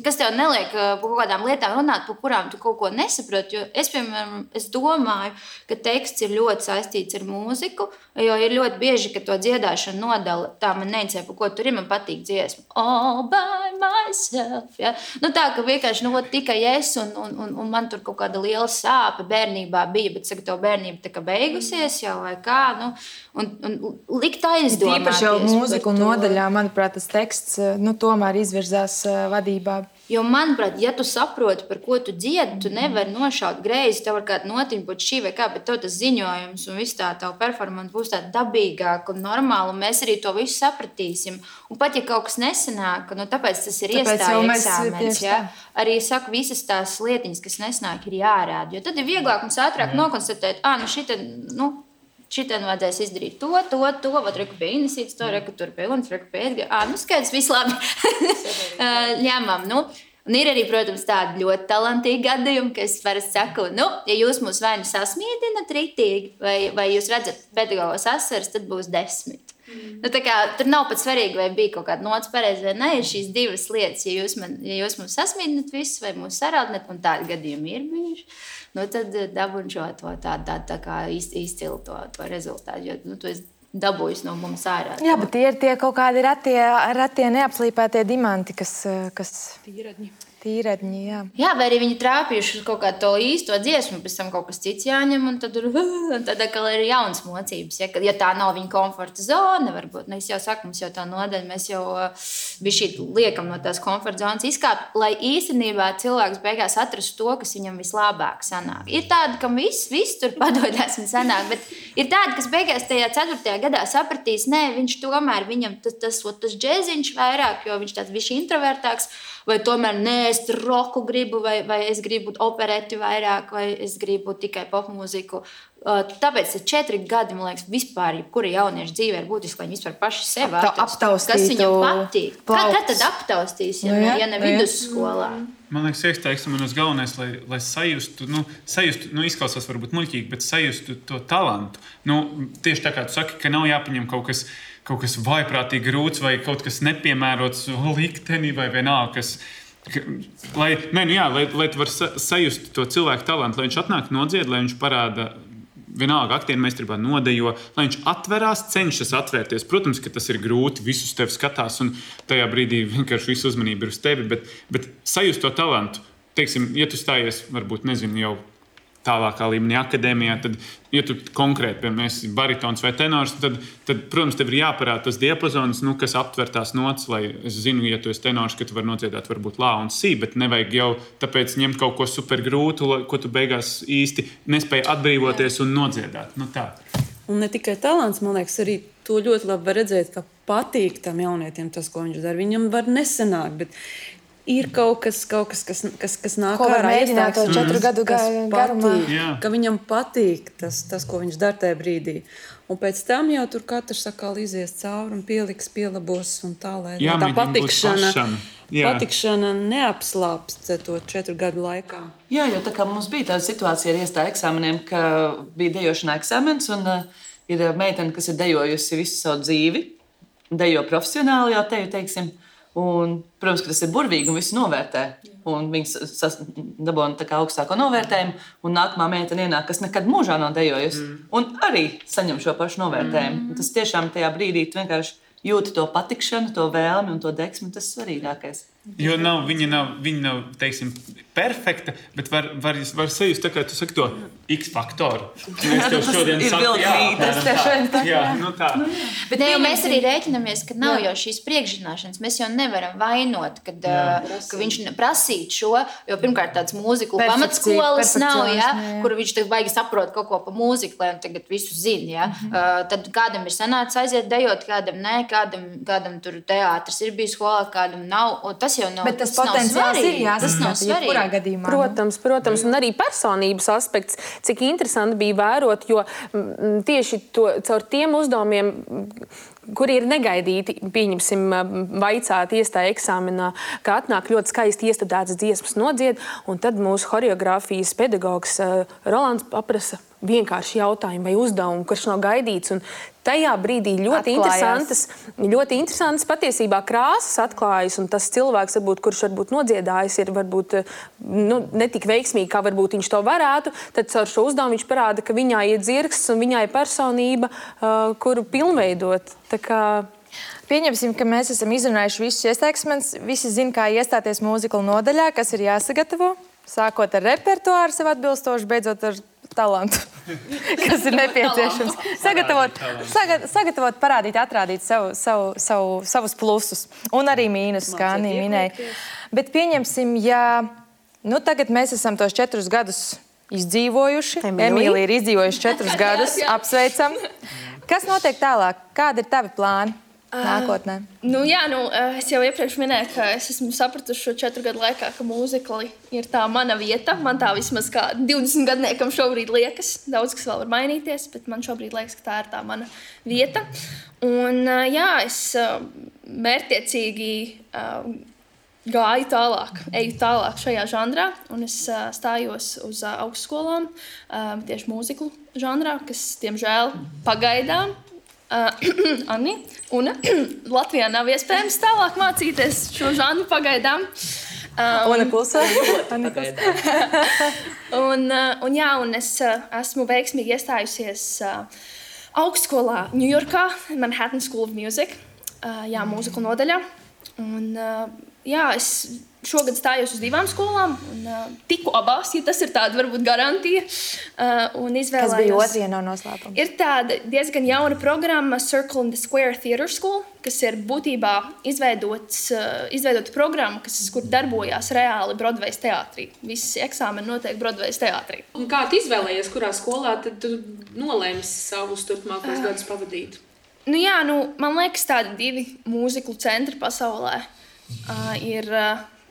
kas tev neliek par kaut kādām lietām runāt, par kurām tu kaut ko nesaproti. Jo es, piemēram, domāju, ka teksts ir ļoti saistīts ar mūziku, jo ir ļoti bieži, ka to dziedāšanu nodala. Tā man neinteresē, par ko tur ir, man patīk dziesma. All by myself. Ja? Tā, ka vienkārši tikai es un man tur kaut kāda liela sāpe bērnībā bija, bet saka, to bērnība tā kā beigusies jau vai kā. Un likt aizdomāties. Īpaši jau mūziku nodaļā, manuprāt, tas teksts tomēr izvirzās vadībā. Jo, manuprāt, ja tu saproti, par ko tu dziedi, tu nevari nošaut greizi, tev var kāda notiņa būt šī vai kā, bet tev tas ziņojums un viss tā tava performance būs tāda dabīgāka un normāla, un mēs arī to visu sapratīsim. Un pat, ja kaut kas nesanāk, tāpēc tas ir iestāju eksāmens, ja? Arī saku, visas tās lietiņas, kas nesanāk, ir jārāda, jo tad ir vieglāk mums ātrāk nokonstatēt, šitien vajadzēs izdarīt to, vat reku pie Inesītes, to reku tur pie Unas, reku pie Edgara. Skaidrs, viss labi. Ņemam, Un ir arī, protams, tādi ļoti talantīgi gadījumi, ka es parasti saku, ja jūs mūs vai nu sasmīdinat ritīgi, vai jūs redzat pedagogos asaras, tad būs 10. Tā kā, tur nav pat svarīgi, vai bija kaut kāda nots pareizi vai ne, ir šīs divas lietas. Ja jūs mūs sasmīdinat visus vai mūs sarādinat, un tādi gadījumi ir bijuši, tad dabūn šo tā kā izcilu to rezultātu, jo tu esi dabūjis no mums ārā. Jā, bet tie kaut kādi ratie neapslīpētie diamanti, kas tīredņi, jā. Jā, vai arī viņi trāpījuši uz kaut kādu to īsto dziesmu, pēc tam kaut kas cits jāņem, un tad atkal ir jaunas mocības. Ja tā nav viņa komforta zona, varbūt, es jau saku, mums jau tā nodaļa, mēs jau bišķīt liekam no tās komforta zonas izkāpt, lai īstenībā cilvēks beigās atrastu to, kas viņam vislabāk sanāk. Ir tādi, kam viss tur padodas un sanāk, bet ir tādi, kas beigās tajā 4. gadā sapratīs, nē, viņš tomēr, viņam tas džēziņš vairāk, jo viņš tāds bišķi introvertāks, vai tomēr nē, es roku gribu, vai es gribu opereti vairāk, vai es gribu tikai popmūziku. Tāpēc 4 gadi, man liekas, vispār, kura jaunieša dzīvē ir būtiski, lai viņi vispār paši sevi atrastu. Kas viņam patīk? Kad tad aptaustīs, ja ne vidusskolā? Man liekas, ieteiksim, un uz galvenais, lai sajustu, izklausās varbūt muļķīgi, bet sajustu to talantu. Tieši tā kā tu saki, ka nav jāpaņem kaut kas vaiprātīgi grūts vai kaut kas nepiemērots likteni vai vienalga, lai tu vari sajust to cilvēku talantu, lai viņš atnāk nodzied, lai viņš parāda vienalga aktiermeistarībā nodejo, lai viņš atverās, cenšas atvērties. Protams, ka tas ir grūti, visus tevi skatās un tajā brīdī vienkārši visu uzmanību ir uz tevi, bet sajust to talantu. Teiksim, ja tu stājies, varbūt, nezinu, jau tālākā līmenī akadēmijā, tad, ja tu konkrēti, piemēram, esi baritons vai tenors, tad protams, tev ir jāparāda tas diapazons, kas aptver tās nots, lai es zinu, ja tu esi tenors, ka tu vari nodziedāt varbūt lā un sī, bet nevajag jau tāpēc ņemt kaut ko super grūtu, ko tu beigās īsti nespēji atbrīvoties un nodziedāt. Tā. Un ne tikai talants, man liekas, arī to ļoti labi var redzēt, ka patīk tam jaunietim tas, ko viņš dara. Viņam var nesanākt, bet ir kaut kas nāk Ko var ārā mēģināt to iestājas, 4 gadu kas garumā? patīk, ka viņam patīk tas, ko viņš dara tajā brīdī. Un pēc tam jau tur katrs atkal izies cauri un pieliks, pielabos un tā, lai tā patikšana neapslāpst to 4 gadu laikā. Jā, jo tā kā mums bija tāda situācija ar iestāju eksāmeniem, ka bija dejošanā eksāmens un ir meitene, kas ir dejojusi visu savu dzīvi, dejo profesionāli jau teiksim. Un, protams, ka tas ir burvīgi un visi novērtē. Un viņi dabūna augstāko novērtējumu, un nākamā meitene ienāk, kas nekad mūžā nav dejojusi. Un arī saņem šo pašu novērtējumu. Tas tiešām tajā brīdī tu vienkārši jūti to patikšanu, to vēlmi un to deksmi. Tas ir svarīgākais. Jo viņa nav teiksim, perfekta, bet var sajust, tā kā tu saki to X faktoru. Mēs tev šodien sakām, tā. Bet mēs arī rēķinamies, ka nav jau šīs priekšzināšanas. Mēs jau nevaram vainot, ka viņš prasīt šo, jo pirmkārt tāds mūziku pamatskolas nav, kur viņš baigi saprot kaut ko pa mūziku, lai tagad visu zina. Tad kādam ir sanācis aiziet dejot, kādam nē, kādam tur teātris ir bijis skolā, kādam nav. Bet tas potenciāls ir jāsasniedz jebkurā gadījumā. Protams, un arī personības aspekts, cik interesanti bija vērot, jo tieši caur tiem uzdevumiem, kuri ir negaidīti, pieņemsim, vaicāt iestāja eksāmenā, ka atnāk ļoti skaisti iestudētas dziesmas nodzied, un tad mūsu choreogrāfijas pedagogs Rolands paprasa vienkārši jautājumu vai uzdevumu, kurš nav gaidīts. Un tajā brīdī ļoti interesantas patiesībā krāsas atklājas, un tas cilvēks, kurš varbūt nodziedājis, ir varbūt ne tik veiksmīgi, kā varbūt viņš to varētu, tad caur šo uzdevumu viņš parāda, ka viņā ir dzirksts un viņā ir personība, kuru pilnveidot. Tā kā pieņemsim, ka mēs esam izrunājuši visus iestāksmes. Visi zina, kā iestāties mūzikla nodaļā, kas ir jāsagatavo. Sākot ar repertuāru sev atbilstoši, beidzot ar talantu, kas ir nepieciešams. Sagatavot, parādīt, atrādīt savus plusus un arī mīnusus, kā Anija minēja. Bet pieņemsim, ja tagad mēs esam tos 4 gadus izdzīvojuši. Emīlija ir izdzīvojuši 4 gadus. Apsveicam. Kas notiek tālāk? Kādi ir tavi plāni nākotnē? Es jau iepriekš minēju, ka es esmu sapratusi šo 4 gadu laikā, ka mūzikli ir tā mana vieta. Man tā vismaz kā 20 gadniekam šobrīd liekas. Daudz kas vēl var mainīties, bet man šobrīd liekas, ka tā ir tā mana vieta. Un es mērķtiecīgi eju tālāk šajā žanrā, un es stājos uz augstskolām tieši mūziklu žanrā, kas, diemžēl, pagaidām Anni, un Latvijā nav iespējams tālāk mācīties šo žanru pagaidām. Una klusē. Un es esmu veiksmīgi iestājusies augstskolā Ņujorkā, Manhattan School of Music, mūzikla nodaļā. Un es šogad stājos uz 2 skolām, un tiku abās, ja tas ir tāda varbūt garantija. Un izvēlējos. Kas bija otrajā no noslēpuma? Ir tāda diezgan jauna programma Circle in the Square Theatre School, kas ir būtībā izveidota programma, kur darbojās reāli Broadways teātrī. Visi eksāmeni notiek Broadways teātrī. Un kā tu izvēlējies, kurā skolā tad tu nolēmi savus turpmākos gadus pavadīt? Man liekas, tādi 2 mūziklu centri pasaulē ir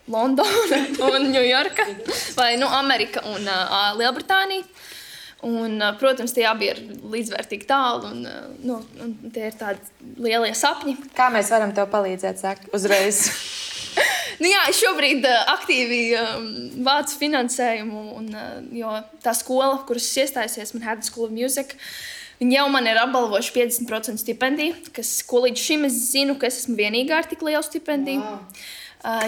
Londona un Ņujorka, vai Amerika un Lielbritānija. Un, protams, tie abi ir līdzvērtīgi tālu, un tie ir tādi lielie sapņi. Kā mēs varam tev palīdzēt, saka, uzreiz? Es šobrīd aktīvi vācu finansējumu, jo tā skola, kuras es iestājusies, Manhattan School of Music, viņi jau man ir apbalvojuši 50% stipendiju, ko līdz šim es zinu, ka es esmu vienīgā ar tik lielu stipendiju. Wow. Un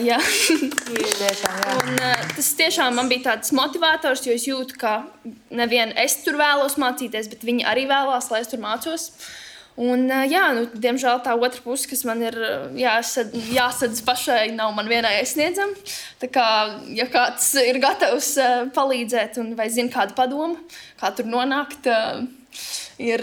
tas tiešām man bija tāds motivators, jo es jūtu, ka nevien es tur vēlos mācīties, bet viņi arī vēlās, lai es tur mācos. Un, diemžēl tā otra puse, kas man ir jāsadz pašai, nav man vienai aizsniedzama. Tā kā, ja kāds ir gatavs palīdzēt un vai zina kādu padomu, kā tur nonākt, ir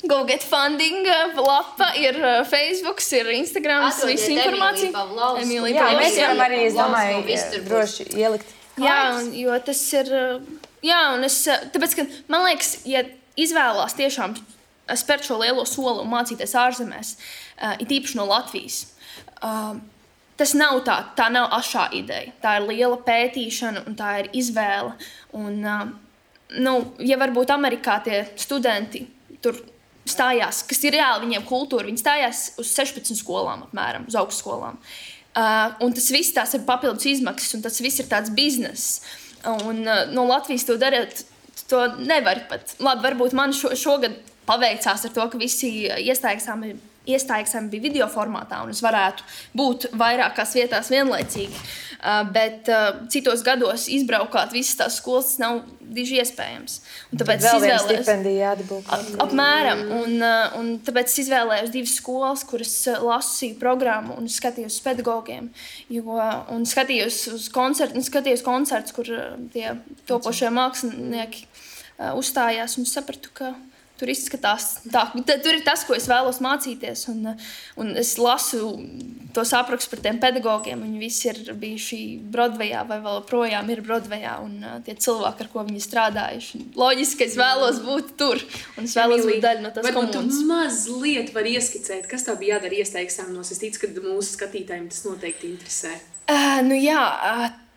Go Get Funding lapa, ir Facebook, ir Instagram, visu informāciju. Mēs varam arī, es domāju, droši ielikt. Jo tas ir, tāpēc, ka man liekas, ja izvēlās tiešām spērt šo lielo soli un mācīties ārzemēs, it īpaši no Latvijas, tas nav tā nav ašā ideja. Tā ir liela pētīšana un tā ir izvēle. Un, ja varbūt Amerikā tie studenti tur stājās, kas ir reāli viņiem kultūra, viņi stājās uz 16 skolām apmēram, uz augstskolām. Un tas viss tās ir papildus izmaksas un tas viss ir tāds bizness. Un no Latvijas to darīt, to nevar pat. Labi, varbūt man šogad paveicās ar to, ka visi iestājas bija video formātā, un es varētu būt vairākās vietās vienlaicīgi. Bet citos gados izbraukāt visas tās skolas, tas nav diži iespējams. Un tāpēc vēl viena stipendija jādabū. Apmēram. Un tāpēc es izvēlējos 2 skolas, kuras lasīju programmu un skatījos uz pedagogiem. Un skatījos uz koncertus, kur tie topošie mākslinieki uzstājās, un sapratu, ka tur izskatās tā. Tur ir tas, ko es vēlos mācīties. Un es lasu tos aprakstus par tiem pedagogiem. Viņi visi ir bijuši Broadwayā vai vēl projām ir Broadwayā. Un tie cilvēki, ar ko viņi strādājuši. Loģiski, ka es vēlos būt tur. Un es vēlos būt daļa no tās komunas. Varbūt tu mazliet var ieskicēt, kas tev bija jādara iestāju eksāmenos. Es ticu, ka mūsu skatītājiem tas noteikti interesē.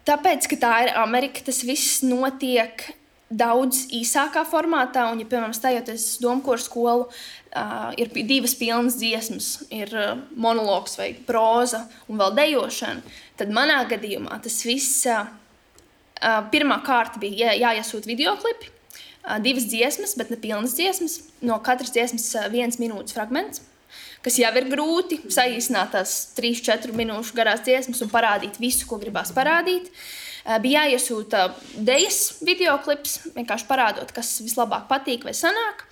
Tāpēc, ka tā ir Amerika, tas viss notiek daudz īsākā formātā, un, ja, piemēram, stājoties domkoru skolu, ir 2 pilnas dziesmas, ir monologs vai próza un vēl dejošana, tad manā gadījumā tas viss pirmā kārta bija jāiesūt videoklipi, 2 dziesmas, bet ne pilnas dziesmas, no katras dziesmas 1 minūtes fragments, kas jau ir grūti saīsināt tās 3-4 minūšu garās dziesmas un parādīt visu, ko gribās parādīt. Bija jāiesūta dejas videoklips, vienkārši parādot, kas vislabāk patīk vai sanāk.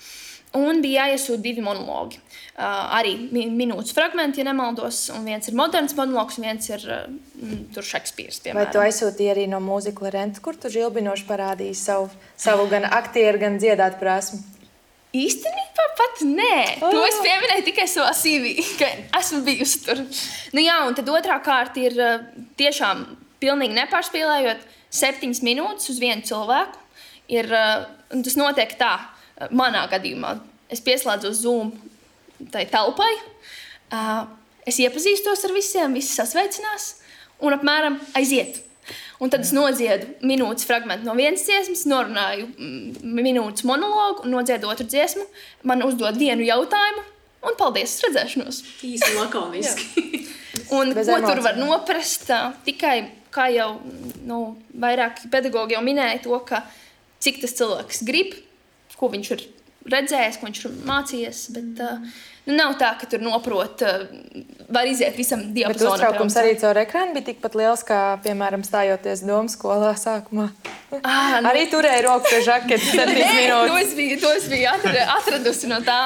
Un bija jāiesūta 2 monologi. Arī minūtes fragmenti, ja nemaldos. Un viens ir moderns monologs, un viens ir Šekspīrs, piemēram. Vai tu aizsūtīji arī no mūzikla Renta, kur tu žilbinoši parādīji savu gan aktieru, gan dziedāt prasmi? Īstenībā pat nē. To es pieminēju tikai savā CV, ka esmu bijusi tur. Un tad otrā kārta ir tiešām pilnīgi nepārspīlējot 7 minūtes uz vienu cilvēku. Un tas notiek tā, manā gadījumā. Es pieslēdzos Zoom tai telpai, es iepazīstos ar visiem, visi sasveicinās un apmēram aiziet. Un tad es nodziedu minūtes fragmentu no vienas dziesmas, norunāju minūtes monologu un nodziedu otru dziesmu. Man uzdod vienu jautājumu un paldies, redzēšanos. Īsi lakoniski. Un ko tur var noprast? Tikai, kā jau vairāki pedagogi jau minēja to, ka cik tas cilvēks grib, ko viņš ir redzējis, ko viņš ir mācījies, bet nav tā, ka tur noprot, var iziet visam diapazonam. Bet uztraukums arī caur ekrānu bija tikpat liels, kā, piemēram, stājoties domu skolā sākumā. Arī turēja roku pie žaketes 7 minūtes. To es biju atradusi no tā.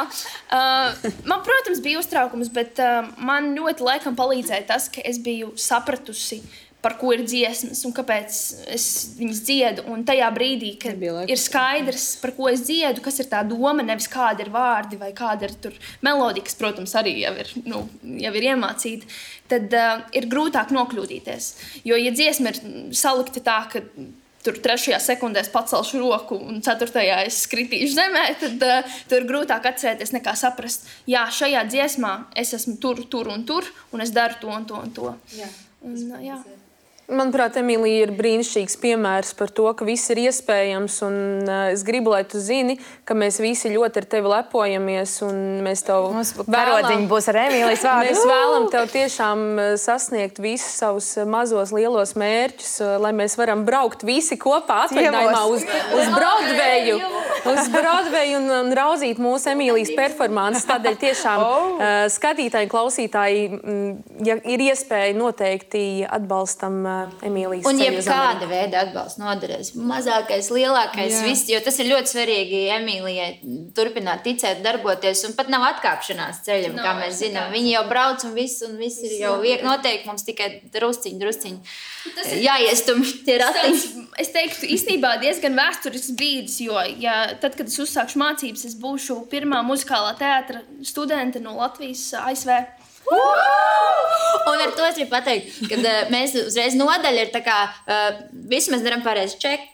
Man, protams, bija uztraukums, bet man ļoti laikam palīdzēja tas, ka es biju sapratusi, par ko ir dziesmas un kāpēc es viņas dziedu. Un tajā brīdī, kad ir skaidrs, par ko es dziedu, kas ir tā doma, nevis kāda ir vārdi vai kāda ir tur melodija, kas, protams, arī jau ir iemācīta, tad ir grūtāk nokļūdīties. Jo, ja dziesma ir salikta tā, ka tur 3. sekundēs pacelšu roku un 4. es skritīšu zemē, tad tur grūtāk atcerēties nekā saprast, jā, šajā dziesmā es esmu tur un es daru to un to un to. Jā. Manuprāt, Emīlija ir brīnišķīgs piemērs par to, ka viss ir iespējams. Un, es gribu, lai tu zini, ka mēs visi ļoti ar tevi lepojamies. Mēs tev vēlam, būs ar Emīlijas vārdu. Mēs vēlam tev tiešām sasniegt visus savus mazos, lielos mērķus, lai mēs varam braukt visi kopā atvaļinājumā uz Broadwayu un raudzīt mūsu Emīlijas performances. Tādēļ tiešām skatītāji, klausītāji, ja ir iespēja, noteikti atbalstam Emīlijas un jebkāda veida atbalsts noderēs. Mazākais, lielākais, viss, jo tas ir ļoti svarīgi Emīlijai turpināt ticēt, darboties, un pat nav atkāpšanās ceļam, kā mēs zinām. Viņi jau brauc un viss ir jau noteikti mums tikai drusciņi. Jāiestum tie ratiņi. Es teiktu, īstenībā diezgan vēsturisks brīdis, jo tad, kad es uzsākšu mācības, es būšu pirmā muzikālā teātra studente no Latvijas ASV. Un ar to es gribu pateikt, ka mēs uzreiz nodaļa ir tā kā visu mēs darām pareizi čeku.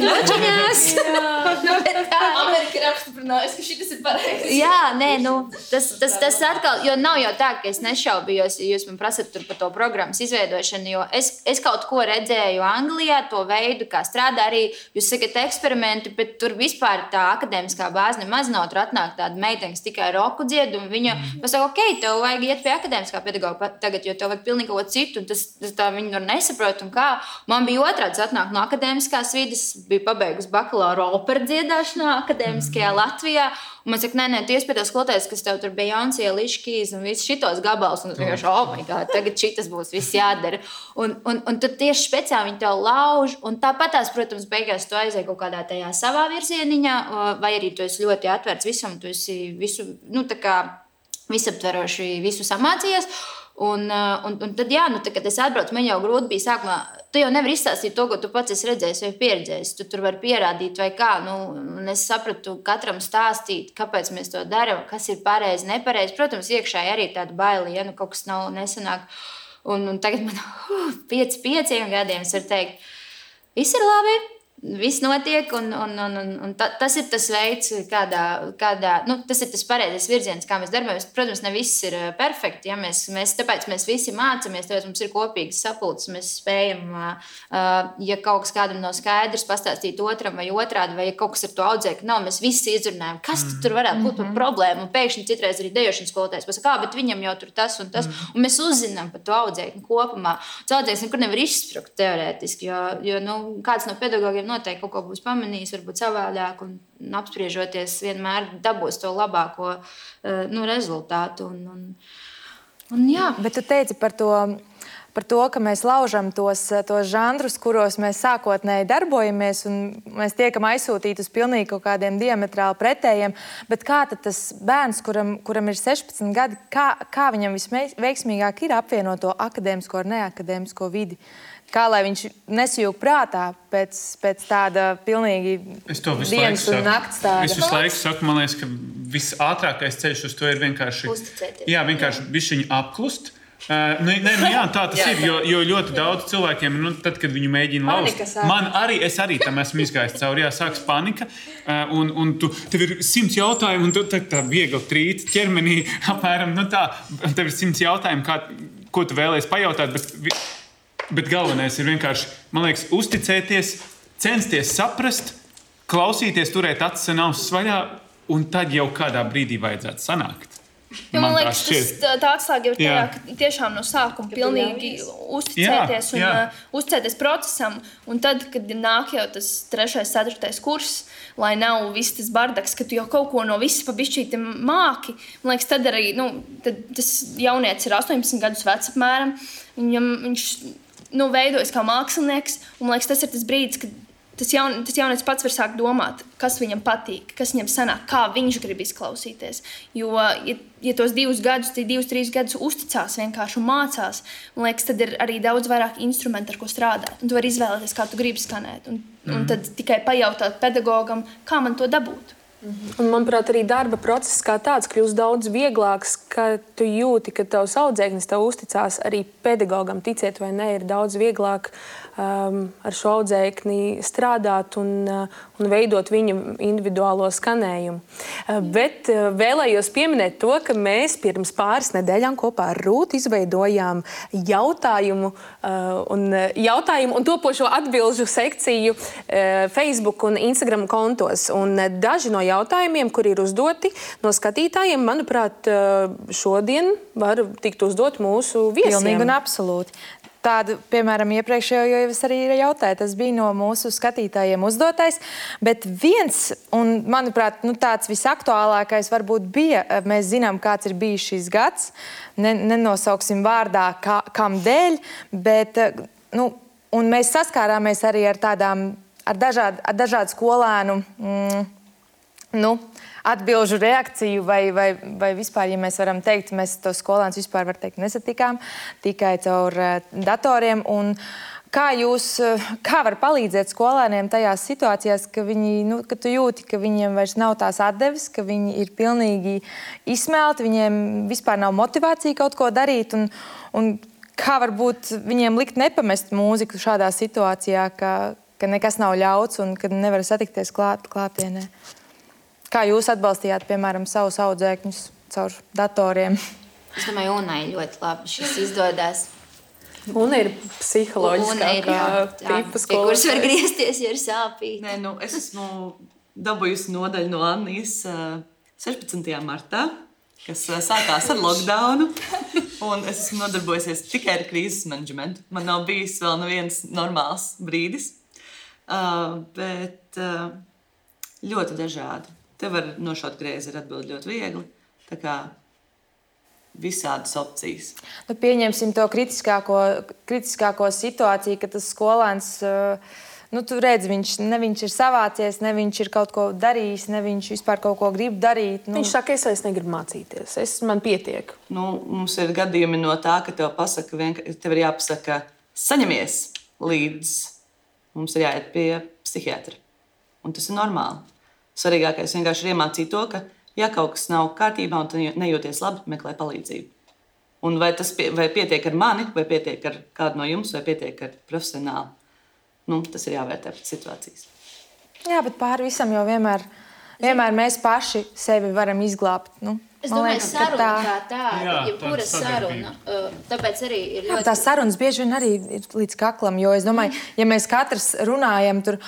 Nočaņās. Amerika ir apstiprinājusi, ka šis ir pareizi. Jā, nē, tas atkal, jo nav jau tā, ka es nešaubījos, ja jūs man prasat tur par to programmas izveidošanu, jo es kaut ko redzēju Anglijā, to veidu, kā strādā arī, jūs sakat eksperimenti, bet tur vispār tā akadēmiskā bāze nemaz nav, tur atnāk tāda meitenes tikai roku dzied, un viņa pasaka, ok, tev vajag iet pie akadēmiskā pedagoga tagad, jo tev vajag pilnīgi kaut ko citu, un tas tā viņi tur nesaprot, un kā. Man bija otrāds atnāk no akadēmiskās vides, biju pabeigusi bakalaura operu dziedāšanā akadēmiskajā Latvijā, un man saka, nē, tu iespēj skoloties, kas tev tur bija Beyoncé, Alicia Keys un viss šitos gabals, un vienkārši, oh my God, tagad šitas būs viss jādara. Un tu tieši speciāli viņi tev lauž, un tāpatās, protams, beigās tu aizēji kaut kādā tajā savā virzieniņā, vai arī tu esi ļoti atvērts visam, tu esi visu, tā kā visaptveroši visu samācījies. Un tad, jā, kad es atbraucu, man jau grūti bija sākumā. Tu jau nevari izstāstīt to, ko tu pats esi redzējis vai pieredzējis. Tu tur vari pierādīt vai kā. Un es sapratu, katram stāstīt, kāpēc mēs to darām, kas ir pareizi, nepareizi. Protams, iekšēji arī tāda baila, ja kaut kas nav nesanāk. Un tagad man 5 gadiem es varu teikt, viss ir labi. Viss notiek, un tas ir tas veids, kādā tas ir tas pareizais virziens, kā mēs darbojamies. Protams, ne viss ir perfekti. Ja? Tāpēc mēs visi mācāmies, tāpēc mums ir kopīgas sapulces. Mēs spējam, ja kaut kas kādam nav skaidrs, pastāstīt otram vai otrādi, vai ja kaut kas ar to audzēkni nav, mēs visi izrunājam, kas tur varētu būt par problēmu. Un pēkšņi citreiz arī dejošanas skolotājs pasaka, bet viņam jau tur tas un tas. Un mēs uzzinām par to audzēkni kopumā. Tas audzēknis nekur nevar izsprukt teorētiski, jo kāds no pedagogiem noteikti kaut ko būs pamanījis, varbūt savādāk, un apspriežoties vienmēr dabūs to labāko rezultātu. Jā. Bet tu teici par to, ka mēs laužam tos žanrus, kuros mēs sākotnēji darbojamies, un mēs tiekam aizsūtīti uz pilnīgi kaut kādiem diametrāli pretējiem. Bet kā tad tas bērns, kuram ir 16 gadi, kā viņam visveiksmīgāk ir apvienot to akadēmisko ar neakadēmisko vidi? Kā lai viņš nesajūg prātā pēc tāda pilnīgi dienas un nakts tāda? Es visu laiku saku, man liekas, ka visātrākais ceļš uz to ir vienkārši uzticēties. Jā, vienkārši bišķiņi apklust. Jā, tā tas ir, jo ļoti daudz cilvēkiem, tad, kad viņi mēģina laust, es arī tam esmu izgājis cauri, sāks panika, un tev ir 100 jautājumu, un tu tā viegli trīt ķermenī, apmēram, tā, tev ir 100 jautājumu, ko tu vēlēsi pajautāt, bet galvenais ir vienkārši, man liekas, uzticēties, censties saprast, klausīties, turēt acis un ausis vaļā, un tad jau kādā brīdī vajadzētu sanākt. Man liekas, tā atslēga ir tajā, ka tiešām no sākuma pilnīgi uzticēties un uzticēties procesam. Un tad, kad nāk jau tas 3., 4. kurs, lai nav viss tas bardaks, ka tu jau kaut ko no visas pa bišķīti māki, man liekas, tad arī, tad tas jaunietis ir 18 gadus vecs apmēram, viņš veidojas kā mākslinieks, un man liekas, tas ir tas brīdis, kad tas jaunietis pats var sākt domāt, kas viņam patīk, kas viņam sanāk, kā viņš grib izklausīties. Jo, ja tos 2 gadus, 2-3 gadus uzticās vienkārši un mācās, man liekas, tad ir arī daudz vairāk instrumentu, ar ko strādāt. Un tu vari izvēlēties, kā tu gribi skanēt. Un tad tikai pajautāt pedagogam, kā man to dabūt. Un, manuprāt, arī darba process kā tāds kļūst daudz vieglāks, ka tu jūti, ka tavs audzēknis tev uzticās arī pedagogam. Ticiet vai ne, ir daudz vieglāk ar šo audzēkni strādāt un veidot viņu individuālo skanējumu. Bet vēlējos pieminēt to, ka mēs pirms pāris nedēļām kopā ar Rūtu izveidojām jautājumu un topošo atbilžu sekciju Facebook un Instagram kontos. Un daži no jautājumiem, kuri ir uzdoti no skatītājiem, manuprāt, šodien var tikt uzdot mūsu viesiem. Pilnīgi un absolūti. Tādu, piemēram, iepriekšējo jau es arī jautāju, tas bija no mūsu skatītājiem uzdotais, bet viens, un manuprāt, tāds visaktuālākais varbūt bija, mēs zinām, kāds ir bijis šis gads, nenosauksim vārdā, kam dēļ, bet, un mēs saskārāmies arī ar dažādu skolēnu, atbilžu reakciju vai vispār, ja mēs varam teikt, mēs tos skolēnus vispār, var teikt, nesatikām tikai caur datoriem. Un Kā var palīdzēt skolēniem tajās situācijās, ka tu jūti, ka viņiem vairs nav tās atdeves, ka viņi ir pilnīgi izsmelti, viņiem vispār nav motivācija kaut ko darīt, un kā varbūt viņiem likt nepamest mūziku šādā situācijā, ka nekas nav ļauts un ka nevar satikties klātienē? Kā jūs atbalstījāt, piemēram, savus audzēkņus caur datoriem? Es domāju, Unai ļoti labi šis izdodas. Un ir psiholoģiskā tipa pie kuras var griezties, ja ir sāpīgi. Nē, es esmu dabūjusi nodaļu no Annijas 16. martā, kas sākās ar lockdownu. Un es esmu nodarbojusies tikai ar krīzes menedžmentu. Man nav bijis vēl neviens normāls brīdis. Bet ļoti dažādi. Te var nošaut greizi ar atbildi ļoti viegli. Tā kā visādas opcijas. Pieņemsim to kritiskāko situāciju, ka tas skolēns, tu redzi, viņš ir savācies, ne viņš ir kaut ko darījis, ne viņš vispār kaut ko grib darīt. Viņš saka, es vairs negribu mācīties, man pietiek. Mums ir gadījumi no tā, ka tev ir jāpasaka, saņemies līdz mums ir jāiet pie psihiatra. Un tas ir normāli. Svarīgākais vienkārši ir iemācīt to, ka ja kaut kas nav kārtībā un tu nejūties labi, meklē palīdzību. Un vai pietiek ar mani, vai pietiek ar kādu no jums, vai pietiek ar profesionāli. Tas ir jāvērtē pēc situācijas. Jā, bet pāri visam jau vienmēr mēs paši sevi varam izglābt. Es domāju, saruna kā tāda, jebkura saruna. Tāpēc arī ir ļoti... Tās sarunas bieži vien arī ir līdz kaklam, jo es domāju, ja mēs katrs runājam, tur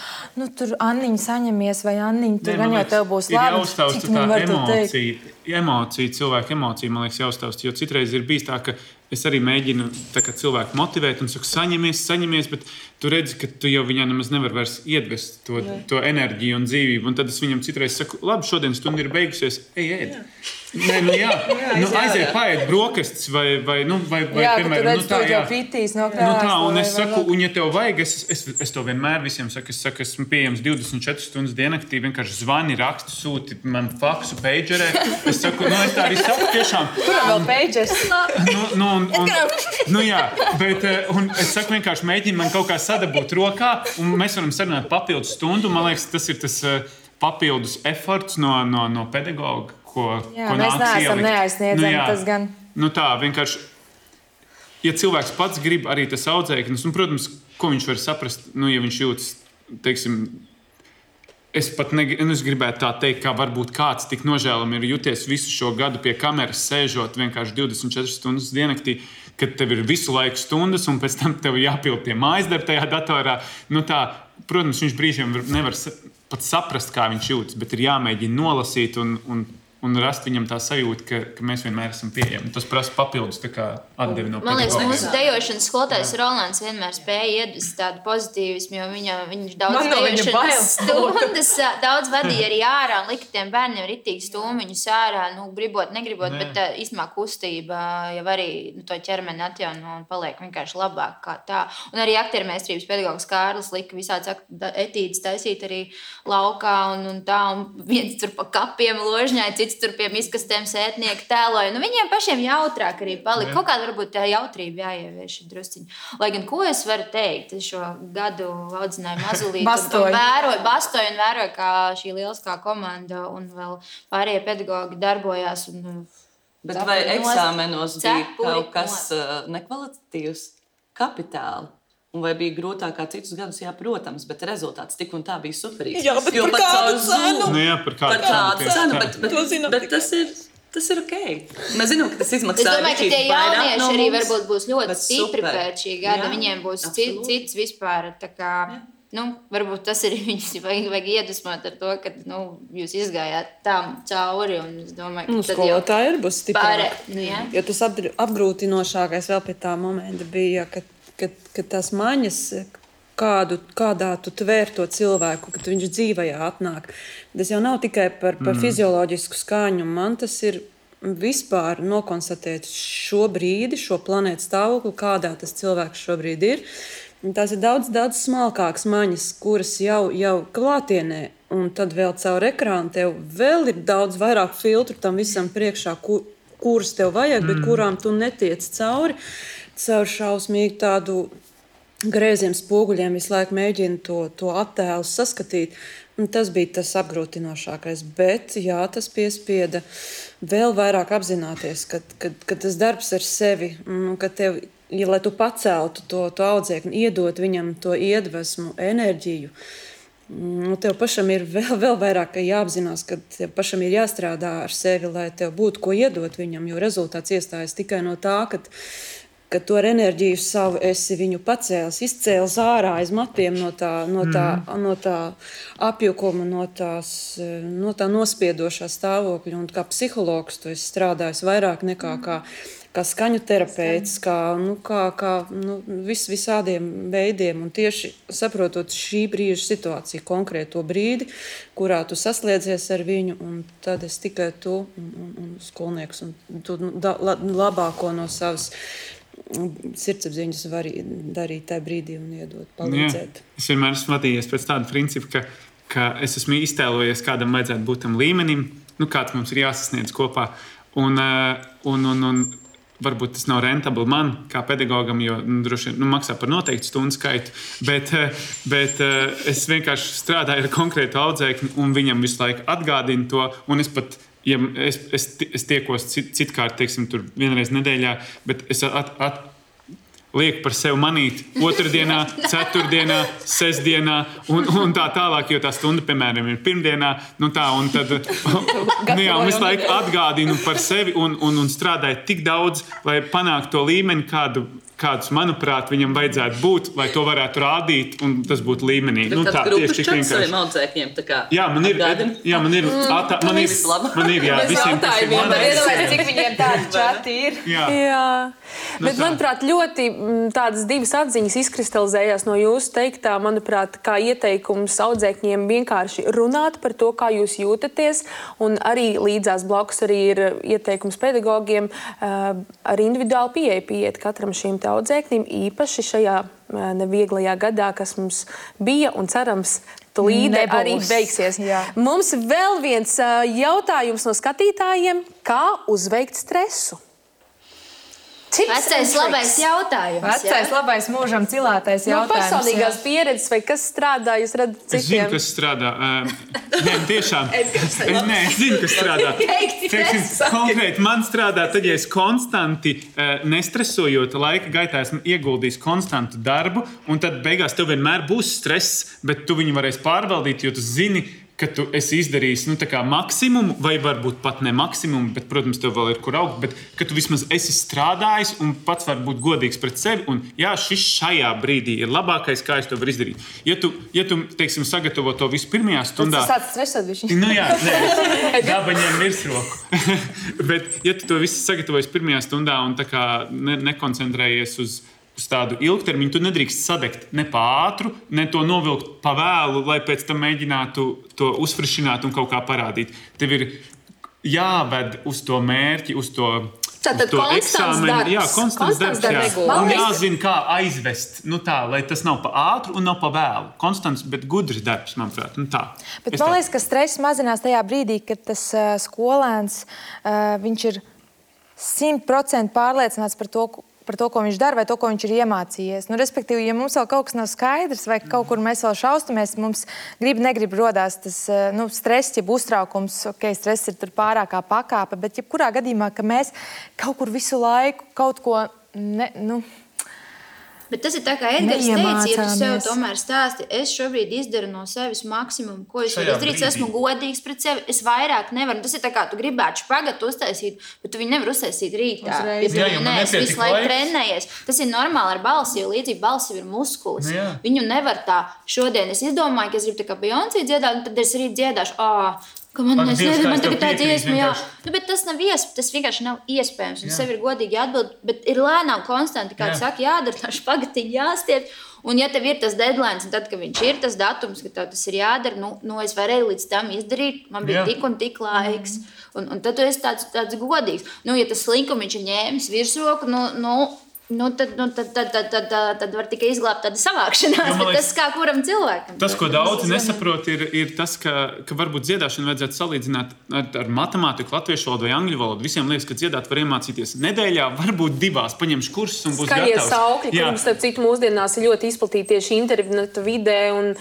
Anniņa saņemies, vai Anniņa, tur gan jau tev būs labi. Ir jāuztaust tā emocija, cilvēku emocija, man liekas, jāuztaust, jo citreiz ir bijis tā, ka es arī mēģinu cilvēku motivēt un saku, saņemies, bet tu redzi, ka tu jau viņā nemaz nevar vairs iedvest to enerģiju un dzīvību. Un tad es viņam citreiz saku, labi, šodien stunda ir beigusies, ēd. Nē, aiziet, paēd brokastis vai piemēram, tu redzi, tu jau pitīs no krāsla. Un es saku, un ja tev vajag, es to vienmēr visiem saku, esmu pieejams 24 stundas diennaktī, vienkārši zvani, rakstu, sūti man faksu, pagerē. Es saku, es tā arī saku tiešām. Kuram vēl pagers? Bet es saku vienkārši mēģinu man kaut kā sadabūt rokā, un mēs varam sarunāt papildus stundu. Man liekas, tas ir tas papildus eforts no pedagoga. Mēs neesam neaizsniedzami, tas gan. Tā, vienkārši, ja cilvēks pats grib arī tas audzēknis, protams, ko viņš var saprast, ja viņš jūtas, teiksim, es pat es gribētu tā teikt, kā varbūt kāds tik nožēlami ir jūties visu šo gadu pie kameras sēžot vienkārši 24 stundas diennaktī, kad tev ir visu laiku stundas, un pēc tam tev jāpild tie mājasdarbi tajā datorā. Protams, viņš brīžiem nevar pat saprast, kā viņš jūtas, bet ir jāmēģina nolasīt un rast viņam tā sajūta, ka mēs vienmēr esam pieejami. Tas prasa papildus atdevi no Man liekas, mūsu dejošanas skolotājs Rolands vienmēr spēja iedvest tādu pozitīvismu, jo viņš daudz dejošanas stundas daudz vadīja arī ārā un lika tiem bērniem ritīgi stūmiņus ārā, gribot, negribot, bet īstenībā kustība jau arī to ķermeni atjauno un paliek vienkārši labāk kā tā. Un arī aktiermeistrības pedagogs Kārlis lika visāds etīdes taisīt arī laukā un tā, un viens tur pa kapiem ložņai, cits tur pie miskastēm sētnieki tēloja. Viņiem pašiem jautrāk arī palika. Kaut kāda varbūt tā jautrība jāievieš drusciņi. Lai gan, ko es varu teikt, es šo gadu audzināju mazulīti bastoju un vēroju, kā šī lieliskā komanda un vēl pārējie pedagogi darbojās. Bet vai eksāmenos bija kaut kas nekvalitatīvs kapitāli? Un vai bija grūtāk kā citus gadus? Jā, protams, bet rezultāts tik un tā bija superīgs. Jā, bet par kādu cenu? Par kādu cenu, bet tas ir ok. Mēs zinām, ka tas izmaksā. Es domāju, ka tie jaunieši arī varbūt būs ļoti stipri pēc šī gada. Viņiem būs cits vispār. Varbūt tas ir viņus vajag iedvesmot ar to, ka jūs izgājāt tam cauri. Un es domāju, ka skolotāji ir būs stiprāk. Jo tas apgrūtinošākais vēl pie tā momenta bija, ka tās maņas, kādā tu tvēr to cilvēku, kad viņš dzīvajā atnāk. Tas jau nav tikai par fizioloģisku skaņu. Man tas ir vispār nokonstatēt šo brīdi, šo planētu stāvokli, kādā tas cilvēks šobrīd ir. Tās ir daudz smalkākas maņas, kuras jau klātienē, un tad vēl caur ekrānu tev vēl ir daudz vairāk filtru tam visam priekšā, kuras tev vajag, bet kurām tu netiec cauri. Caur šausmīgu tādu grieziem spoguļiem visu laiku mēģina to attēlu saskatīt. Tas bija tas apgrūtinošākais. Bet jā, tas piespieda vēl vairāk apzināties, ka tas darbs ar sevi, ka tev, lai tu paceltu to audzēkni, iedot viņam to iedvesmu, enerģiju, tev pašam ir vēl vairāk jāapzinās, ka tev pašam ir jāstrādā ar sevi, lai tev būtu ko iedot viņam, jo rezultāts iestājas tikai no tā, ka to ar enerģiju savu esi viņu pacēlis, izcēlis ārā aiz matiem no tā apjukuma, no tā nospiedošā stāvokļa. Un kā psihologs tu esi strādājis vairāk nekā kā skaņu terapeits, kā visādiem veidiem. Un tieši saprotot šī brīža situāciju, konkrēto brīdi, kurā tu saslēdzies ar viņu, un tad es tikai tu un skolnieks, un tu labāko no savas sirdsapziņas var darīt tajā brīdī un iedot, palīdzēt. Es vienmēr esmu vadījies pēc tāda principa, ka es esmu iztēlojies, kādam vajadzētu būt tam līmenim, kāds mums ir jāsasniedz kopā. Un varbūt tas nav rentabli man, kā pedagogam, jo droši vien maksā par noteiktu stundu skaitu, bet es vienkārši strādāju ar konkrētu audzēkni un viņam visu laiku atgādinu to, un es pat ja es tiekos citkārt, teiksim, tur vienreiz nedēļā, bet es lieku par sevi manīt otrdienā, ceturtdienā, sestdienā un tā tālāk, jo tā stunda, piemēram, ir pirmdienā, un tad un visu laiku atgādinu par sevi un strādāju tik daudz, lai panāktu to līmeni, kādus, manuprāt, viņam vajadzētu būt, lai to varētu rādīt, un tas būtu līmenī. Bet tāds grupas čats saviem audzēkņiem, tā kā jā, man ir, visiem tas ir manā. Cik viņiem tādi čati ir? Jā. Bet, manuprāt, ļoti tādas divas atziņas izkristalizējās no jūsu teiktā, manuprāt, kā ieteikums audzēkņiem vienkārši runāt par to, kā jūs jūtaties, un arī līdzās blakus arī ir ieteikums pedagogiem ar individuālu pieiet katram šīm audzēknim, īpaši šajā nevieglajā gadā, kas mums bija un cerams tūlīdē arī beigsies. Jā. Mums vēl viens jautājums no skatītājiem, kā uzveikt stresu? Vecais labais jautājums. Vecais labais mūžam cilātais jautājums. No personīgās pieredzes, vai kas strādā, jūs redzat citiem? Es zinu, kas strādā. Nē, tiešām. Es zinu, kas strādā. Konkrēti man strādā, tad, ja es konstanti nestresojot laika gaitā, esmu ieguldījis konstantu darbu, un tad beigās tev vienmēr būs stress, bet tu viņu varēsi pārvaldīt, jo tu zini, ka tu esi izdarījis maksimumu, vai varbūt pat ne maksimumu, bet, protams, tev vēl ir kur augt, bet ka tu vismaz esi strādājis un pats var būt godīgs pret sevi, un jā, šis šajā brīdī ir labākais, kā es to varu izdarīt. Ja tu teiksim, sagatavo to visu pirmajā stundā... Tu sāc stresot viņš. Jā, nē, daba ņem virsroku. Bet, ja tu to visu sagatavojas pirmajā stundā un tā kā nekoncentrējies uz tādu ilgtermiņu, tu nedrīkst sadegt ne pa ātru, ne to novilkt pa vēlu, lai pēc tam mēģinātu to uzfrišināt un kaut kā parādīt. Tev ir jāved uz to mērķi, uz to eksāmenu. Jā, konstants darbs. Un jāzina, kā aizvest, lai tas nav pa ātru un nav pa vēlu. Konstants, bet gudrs darbs, manuprāt. Bet man liekas, ka stress mazinās tajā brīdī, kad tas skolēns, viņš ir 100% pārliecināts par to, ko viņš dara vai to, ko viņš ir iemācījies. Respektīvi, ja mums vēl kaut kas nav skaidrs vai kaut kur mēs vēl šaustamies, mums negrib rodās tas stress, jeb uztraukums, stress ir tur pārākā pakāpe, bet jebkurā gadījumā, ka mēs kaut kur visu laiku kaut ko Bet tas ir tā, kā Edgars teica, ja tu sev tomēr stāsti, es šobrīd izdaru no sevis maksimumu, ko es varu izdarīt, esmu godīgs pret sevi, es vairāk nevaru. Tas ir tā, kā tu gribētu špagatu uztaisīt, bet tu viņu nevar uztaisīt rītā. Es visu laiku trenējies. Tas ir normāli ar balsi, jo līdzīgi balsi ir muskulis. Viņu nevar tā, šodien es izdomāju, ka es gribu tā kā Beyoncé dziedāt, un tad es rīt dziedāšu, man tagad tā dziesma, bet tas nav tas vienkārši nav iespējams, un sev ir godīgi jāatbild, bet ir lēnām konstanti, kā tu saki, jādara tā špagatiņa jāstiep, un ja tev ir tas deadline, un tad, kad viņš ir tas datums, ka tev tas ir jādara, es varēju līdz tam izdarīt, man bija tik un tik laiks, un tad tu esi tāds godīgs. Ja tas slinkumiņš ir ņēmis virsroku, Tad var tikai izglābt tādu savākšanās, bet tas kā kuram cilvēkam. Tas, ko daudzi nesaprot, ir tas, ka varbūt dziedāšanu vajadzētu salīdzināt ar matemātiku, latviešu valodu vai angļu valodu. Visiem liekas, ka dziedāt var iemācīties nedēļā, varbūt 2, paņemšu kursus un būs gatavs. Skaļie saukļi, kuriem starp citu mūsdienās ir ļoti izplatīti tieši internetu vidē un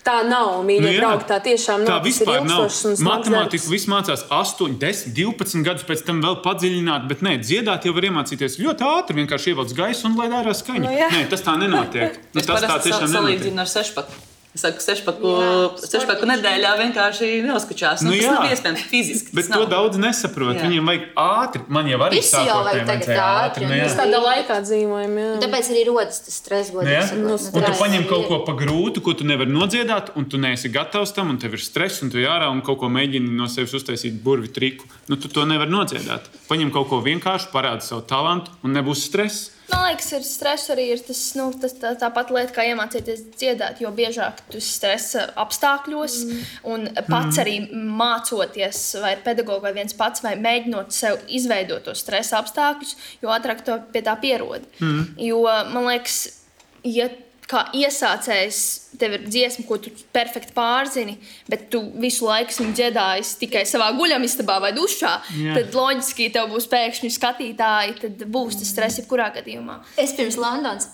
tā nav, mīļie draugi, tā tiešām nav. Tā vispār nav. Matemātiku viss mācās 8, 10, 12 gadus, pēc tam vēl padziļināt, bet nē, dziedāt jau var iemācīties ļoti ātri, vienkārši ievelc gaisu un lai ārā skaņa. Nē, tas tā nenotiek. Es parasti salīdzinu ar 6. Es saku, 6 nedēļā vienkārši neuzkučās. Tas nav iespējams fiziski. Bet to daudz nesaprot. Viņiem vajag ātri. Man jau arī sākotnēji vajadzēja ātri. Mēs tādā laikā dzīvojam, jā. Tāpēc arī rodas tas stress, godīgi sakot. Un tu paņem kaut ko pa grūtu, ko tu nevari nodziedāt, un tu neesi gatavs tam, un tev ir stress, un tu jārā un kaut ko mēģini no sevis uztaisīt burvi triku. Tu to nevari nodziedāt. Paņem kaut ko vienkārši, parādi savu talantu, un nebūs stress. Man liekas, ir stress arī ir tāpat lieta, kā iemācīties dziedāt, jo biežāk tu stresa apstākļos un pats arī mācoties, vai ir pedagogs vai viens pats, vai mēģinot sev izveidot tos stresa apstākļus, jo ātrāk to pie tā pierod. Jo, man liekas, ja kā iesācējs, tev ir dziesma, ko tu perfekti pārzini, bet tu visu laiku viņu dziedājies tikai savā guļamistabā vai dušā, tad loģiski tev būs pēkšņi skatītāji, tad būs tas stress jebkurā gadījumā. Es pirms Londonas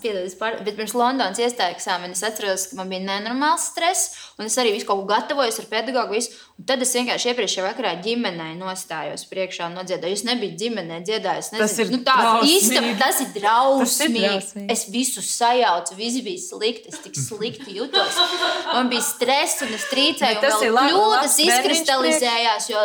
iestāju eksāmeni, es atceros, ka man bija nenormāls stress, un es arī visu kaut ko gatavojos ar pedagogu, un tad es vienkārši iepriekšējā vakarā ģimenei nostājos priekšā un nodziedāju. Es nebiju ģimenē dziedājis, nezinu, tas ir drausmīgi. Es visu sajaucu, visi bija slikti, es tik slikti jutos. Man bija stress un es trīcēju, un vēl kļūdas izkristalizējās, jo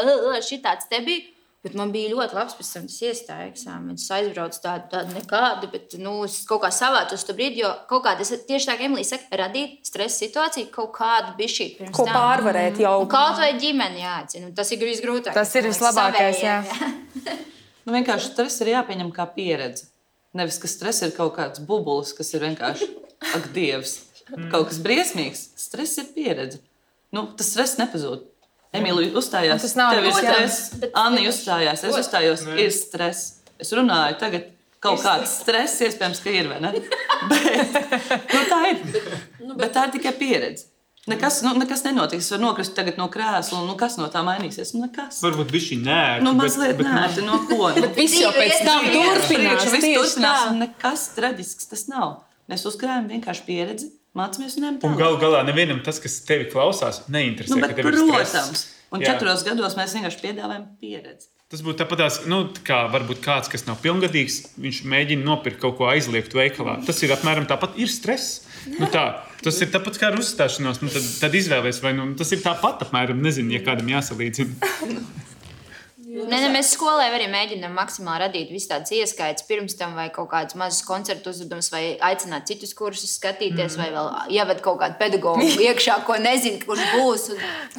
šitāds te bija. Bet man bija ļoti labs, pēc tam tas iestāja eksāmenis. Es aizbraucu tādu nekādu, bet es kaut kā savācos to brīdi, jo kaut kāda, tieši tā, kā Emīlija saka, radīt stresa situāciju, kaut kādu bišķīt pirms ko pārvarēt jau. Un kaut vai ģimeni jāatcina, tas ir visgrūtāk. Tas ir vislabākais, jā. Vienkārši stress ir jāpieņem kā pieredze. Nevis, ka stress ir kaut kāds bubulis, kas ir vienkārši, ak, Dievs, kaut kas briesmīgs. Stress ir pieredze. Tas stress nepazūd. Emīlija uzstājās, tev ir stress. Anni uzstājās, es uzstājos, ir stress. Es runāju tagad kaut kāds stress, iespējams, ka ir, vai ne? Bet tā ir. Bet tā ir tikai pieredze. Nekas nenotiks. Es varu nokrist tagad no krēsla, un kas no tā mainīsies? Nekas. Varbūt bišķi nērti. Mazliet nērti, no ko? Bet viss jau pēc tam turpinās. Viss turpinās, un nekas traģisks tas nav. Mēs uzkrājam vienkārši pieredzi, mācāmies un ejam tālāk. Un galā nevienam tas, kas tevi klausās, neinteresē, ka tev ir stress. Protams. Un 4 gados mēs vienkārši piedāvājam pieredzi. Tas būtu tāpatās, kā varbūt kāds, kas nav pilngadīgs, viņš mēģina nopirkt kaut ko aizliegtu veikalā. Tas ir apmēram tāpat, ir stress. Tas ir tāpat kā ar uzstāšanos. Tad izvēlies, vai tas ir tāpat apmēram, nezinu, ja kādam jāsalīdzina. Mēs skolē arī mēģinām maksimāli radīt visu tādas ieskaitas pirms tam, vai kaut kādas mazas koncertu uzvedumus, vai aicināt citus kursus skatīties, vai vēl ieved kaut kādu pedagogu iekšā, ko nezinu, kurš būs.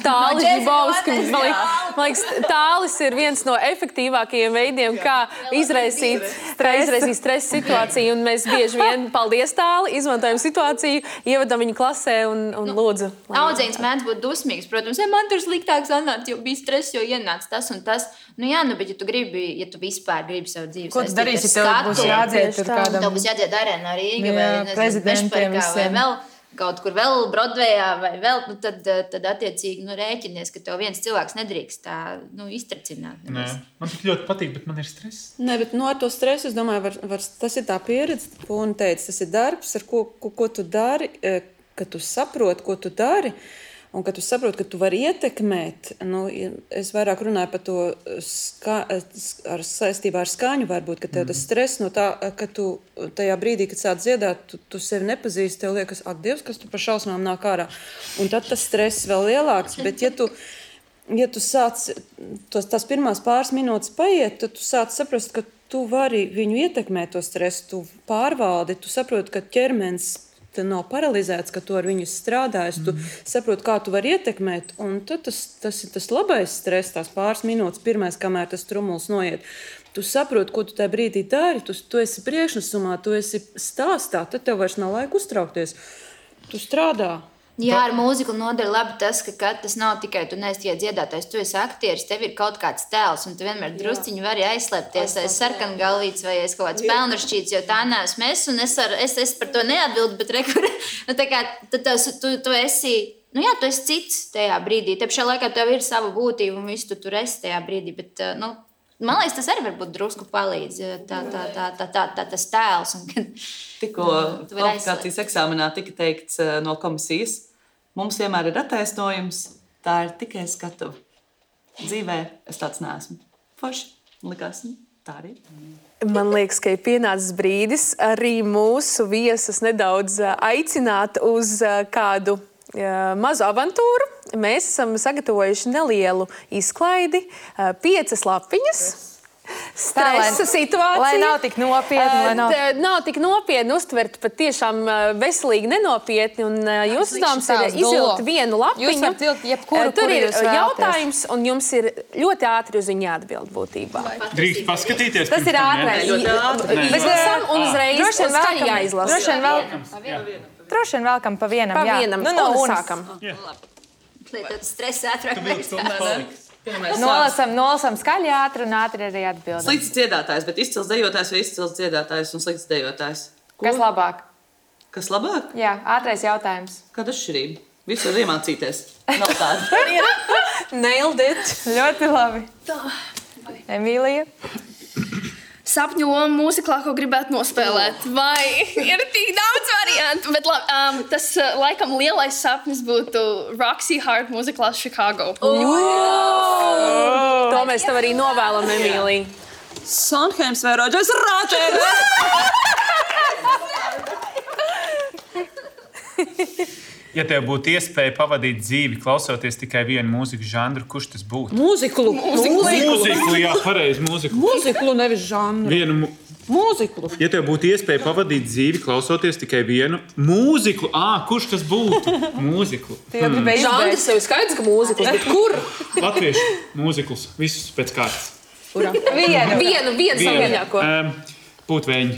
Tālis Žibovskis. Man liekas, Tālis ir viens no efektīvākajiem veidiem, kā izraisīt stresa situāciju. Un mēs bieži vien, paldies Tāli, izmantojam situāciju, ievedam viņu klasē un lūdzu. Audzēns mēdz būt dusmīgs, protams, man tur sliktāk sanāca, jo bija stress, jo ienāca tas un tas. Bet ja tu vispār gribi savu dzīvi ko tu darīsi, tev būs jādzied tur kādam. Tev būs jādzied Arēnā Rīga vai Mešparkā vai vēl kaut kur vēl Brodvejā vai vēl, tad attiecīgi rēķinies, ka tev viens cilvēks nedrīkst tā iztracināt. Man tik ļoti patīk, bet man ir stress. Nē, bet ar to stresu, es domāju, tas ir tā pieredze, ko un teica, tas ir darbs, ar ko tu dari, ka tu saproti, ko tu dari. Un kad tu saproti, ka tu vari ietekmēt, es vairāk runāju par to saistībā ar skaņu, varbūt, ka tev tas stress no tā, ka tu tajā brīdī, kad sāc dziedāt, tu sevi nepazīsti, tev liekas, ak, Dievs, kas tu par šausmām nāk ārā. Un tad tas stress vēl lielāks, bet ja tu sāc, tās pirmās pāris minūtes paiet, tad tu sāc saprast, ka tu vari viņu ietekmēt to stresu, tu pārvaldi, tu saproti, ka ķermenis nav paralizēts, ka tu ar viņu strādājies, tu saproti, kā tu vari ietekmēt, un tad tas ir tas labais stress, tās pāris minūtes pirmais, kamēr tas trumuls noiet. Tu saproti, ko tu tajā brīdī dari, tu esi priekšnesumā, tu esi stāstā, tad tev vairs nav laika uztraukties. Tu strādā. Jā, ar mūziku noder labi tas, ka tas nav tikai tu neesi tikai dziedātājs, tu esi aktieris, tev ir kaut kāds tēls, un tu vienmēr drusciņi vari aizslēpties aiz sarkangalvītes vai aiz kaut kāds pelnrašķīts, jo tā neesmu es, un es par to neatbildu, bet rekur, nu tā kā tu esi, nu jā, tu esi cits tajā brīdī, te pašā laikā tev ir sava būtība, un visu tu tur esi tajā brīdī, bet, nu, man liekas, tas arī varbūt drusku palīdz, tas tēls. Tikko kvalifikācijas eksāmenā tika teikts no komisijas, mums vienmēr ir attaisnojums, tā ir tikai skatuve. Dzīvē es tāds neesmu. Forši, likās, tā arī. Man liekas, ka ir pienācis brīdis arī mūsu viesus nedaudz aicināt uz kādu mazu avantūru. Mēs esam sagatavojuši nelielu izklaidi, 5 lapiņas. Stresa situācija. Lai nav tik nopietni. Nav tik nopietni uztvert, pat tiešām veselīgi nenopietni. Un jūs uzdevums ir izvilkt vienu lapiņu. Jūs varat vilkt jebkuru, tur ir jūs vēlaties. jautājums, un jums ir ļoti ātri uz viņu jāatbild būtībā. Drīkst paskatīties. Tas ir ātrais. Mēs lasām un uzreiz Droši vien skaļi jāizlasa. Droši vien vēlkam pa vienam. Pa jā. vienam. Nu, no Un unas. sākam. Lietot stresa ātrāk. Nolasam skaļi ātri un ātri arī atbildam. Slikts dziedātājs, bet izcils dejotājs vai izcils dziedātājs un slikts dejotājs? Kas labāk? Kas labāk? Jā, ātrais jautājums. Kāda atšķirība? Visu var iemācīties. Nav tāda. Nailed it. Ļoti labi. Emīlija? Sapņu loma mūziklā, ko gribētu nospēlēt. Vai ir tik daudz variantu, bet tas laikam lielais sapnis būtu Roxy Hart mūziklā Chicago. To mēs tev arī novēlam, Emīlija. Sondheims vai Rodžers Rāčers? Ja tev būtu iespēja pavadīt dzīvi, klausoties tikai vienu mūzikas žanru, kurš tas būtu? Mūziklu. Mūziklu, jā, pareizi, mūziklu. Mūziklu, nevis žanru. Mūziklu. Ja tev būtu iespēja pavadīt dzīvi, klausoties tikai vienu mūziklu, kurš tas būtu? Mūziklu. Žanrs jau ir skaidrs, ka mūzikls, bet kur? Latviešu mūziklus, visus pēc kārtas. Vienu saviņāko. Pūtvēņi.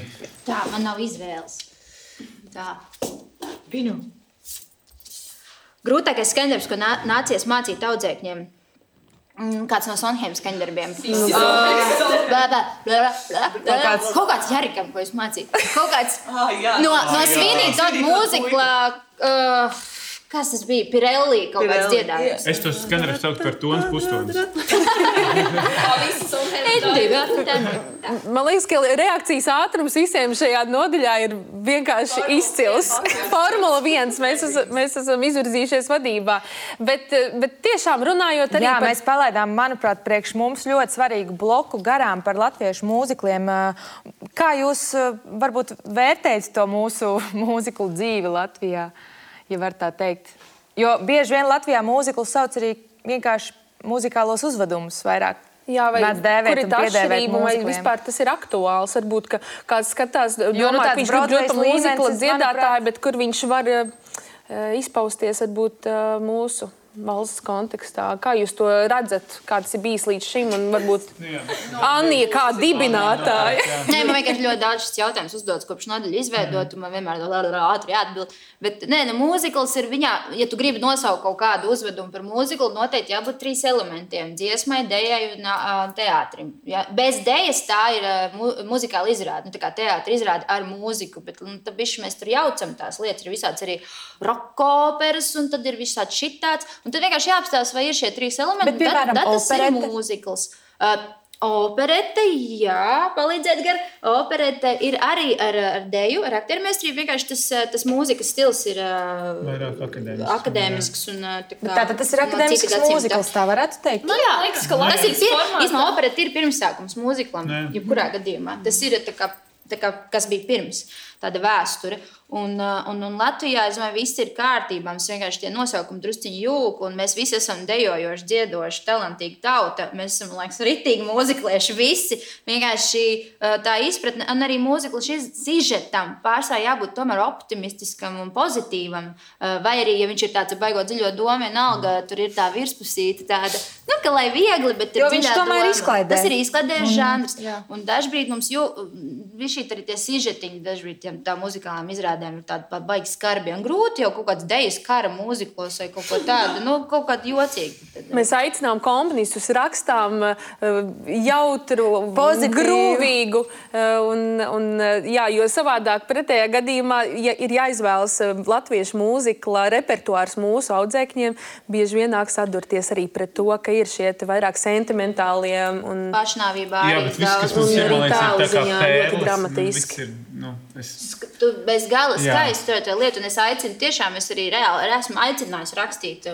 Tā, man nav izvēles. Tā. Vinu. Grūtākais skandarbs, ko nācies mācīt audzēkņiem. Kāds no Sondheimas skandarbiem. Kaut kāds Jarikam, ko es mācīju. Kaut kāds no Svinīt tādu mūzikla... Kas tas bija? Pirelli kaut kāds dziedājums. Es tos skandarbus sauktu par tonas pustonas. Man liekas, ka reakcijas ātrums visiem šajā nodaļā ir vienkārši izcils. Formula 1, mēs esam izvirzījušies vadībā. Bet tiešām runājot arī Jā, par... mēs palaidām, manuprāt, priekš mums ļoti svarīgu bloku garām par latviešu mūzikliem. Kā jūs varbūt vērtējat to mūsu mūziklu dzīvi Latvijā, ja var tā teikt? Jo bieži vien Latvijā mūziklu sauc arī vienkārši muzikālos uzvedumus vairāk. Jā, vai kur ir tā atšķirība, vai mūzikliem. vispār tas ir aktuāls? Varbūt, ka kāds skatās, domā, ka tāds viņš grib ļoti Broadways mūzikla līmenis, dziedātāju, bet kur viņš var izpausties, varbūt mūsu valsts kontekstā. Kā jūs to redzat? Kā tas ir bijis līdz šim? Un varbūt Annija kā dibinātāja. Nē, man vienkārši ļoti daudz šis jautājums uzdodas kopš nodaļu izveidot, un man vienmēr ātri jāatbild. Bet, nē, mūzikls ir viņā, ja tu gribi nosaukt kaut kādu uzvedumu par mūziklu, noteikti jābūt 3 elementiem - dziesmai, dejai un teātrim. Ja? Bez dejas tā ir muzikāla izrāde, tā kā teātra izrāde ar mūziku, bet tad bišķi mēs tur jaucam tās lietas, ir visāds arī rock operas, un tad ir visāds šitāds. Un tad vienkārši jāapstāsta, vai ir šie 3 elementi. Bet, piemēram, tad tas operete? ir mūzikls. Operete, jā, palīdzēt gar. Operete ir arī ar deju, ar aktiermeistrību. Vienkārši tas mūzikas stils ir Vairāk akadēmisks. Tātad tas ir akadēmisks mūzikls, tā varētu teikt? Nu, jā, Liekas, ka tas ir formātā. īstenībā operete ir pirmsākums mūziklam, jebkurā gadījumā. Tas ir tā kā, kas bija pirms, tāda vēsture. Un Latvijā, es domāju, viss ir kārtībā. Mums vienkārši tie nosaukumi drusciņi jūg, un mēs visi esam dejojoši, dziedoši, talantīgi tauta. Mēs esam, liekas, ritīgi mūziklieši visi. Vienkārši tā izpratne, un arī mūzikla šis sižetam pārsvarā jābūt tomēr optimistiskam un pozitīvam. Vai arī, ja viņš ir tāds baigot dziļo domu, vienalga, tur ir tā virspusīta tāda, nu, ka lai viegli, bet ir Jo viņš dziļā tomēr doma. izklaidē. Tas ir izklaidējis žanrs. Un dažbrīd mums šī arī tie sižetiņi dažbrīd tā muzikālām izrādēm ir tādi baigi skarbi un grūti, jau kaut kāds dejas kara mūzikos vai kaut ko tādu, kaut kādu jocīgu. Mēs aicinām komponistus, rakstām jautru, grūvīgu, jo savādāk pretējā gadījumā ir jāizvēlas latviešu mūzikla repertuārs mūsu audzēkņiem, bieži vien nāk sadurties arī pret to, ka ir šie vairāk sentimentālie un pašnāvībā arī daudz. Un arī tālu ziņā ļoti dramatiski. Tu bez gala skaisti to lietu, un es aicinu tiešām, es arī reāli esmu aicinājis rakstīt.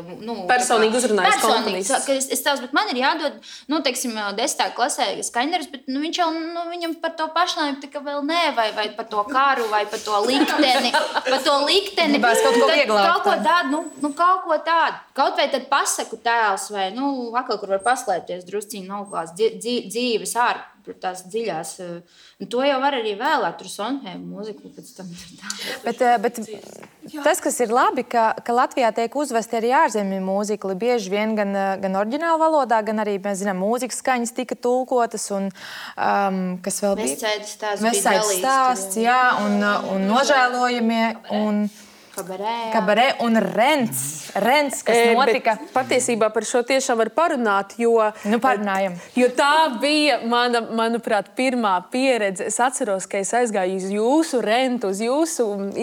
Personīgi uzrunājis komponistus. Es tās, bet man ir jādod, teiksim, 10. klasē skaņdarbs, bet viņš jau, viņam par to pašnāvību tika vēl nē, vai par to karu, vai par to likteni. Gribās kaut ko vieglāk. Kaut ko tādu. Kaut vai tad pasaku tēls, vai, atkal, kur var paslēpties drusciņi noklās dzīves ārpus. Tās dziļās. Un to jau var arī vēlēt, tur Sondheimu mūziku pēc tam. Bet tas, kas ir labi, ka Latvijā tiek uzvesti arī ārzemju mūzikli, bieži vien gan oriģināla valodā, gan arī, mēs zinām, mūzikas skaņas tika tulkotas un kas vēl bija? Vesaidas stāsts, jā, un nožēlojamie un Kabarē un Rents, kas notika. Patiesībā par šo tiešām var parunāt, jo tā bija manuprāt, pirmā pieredze. Es atceros, ka es aizgāju uz jūsu Rentu, uz jūsu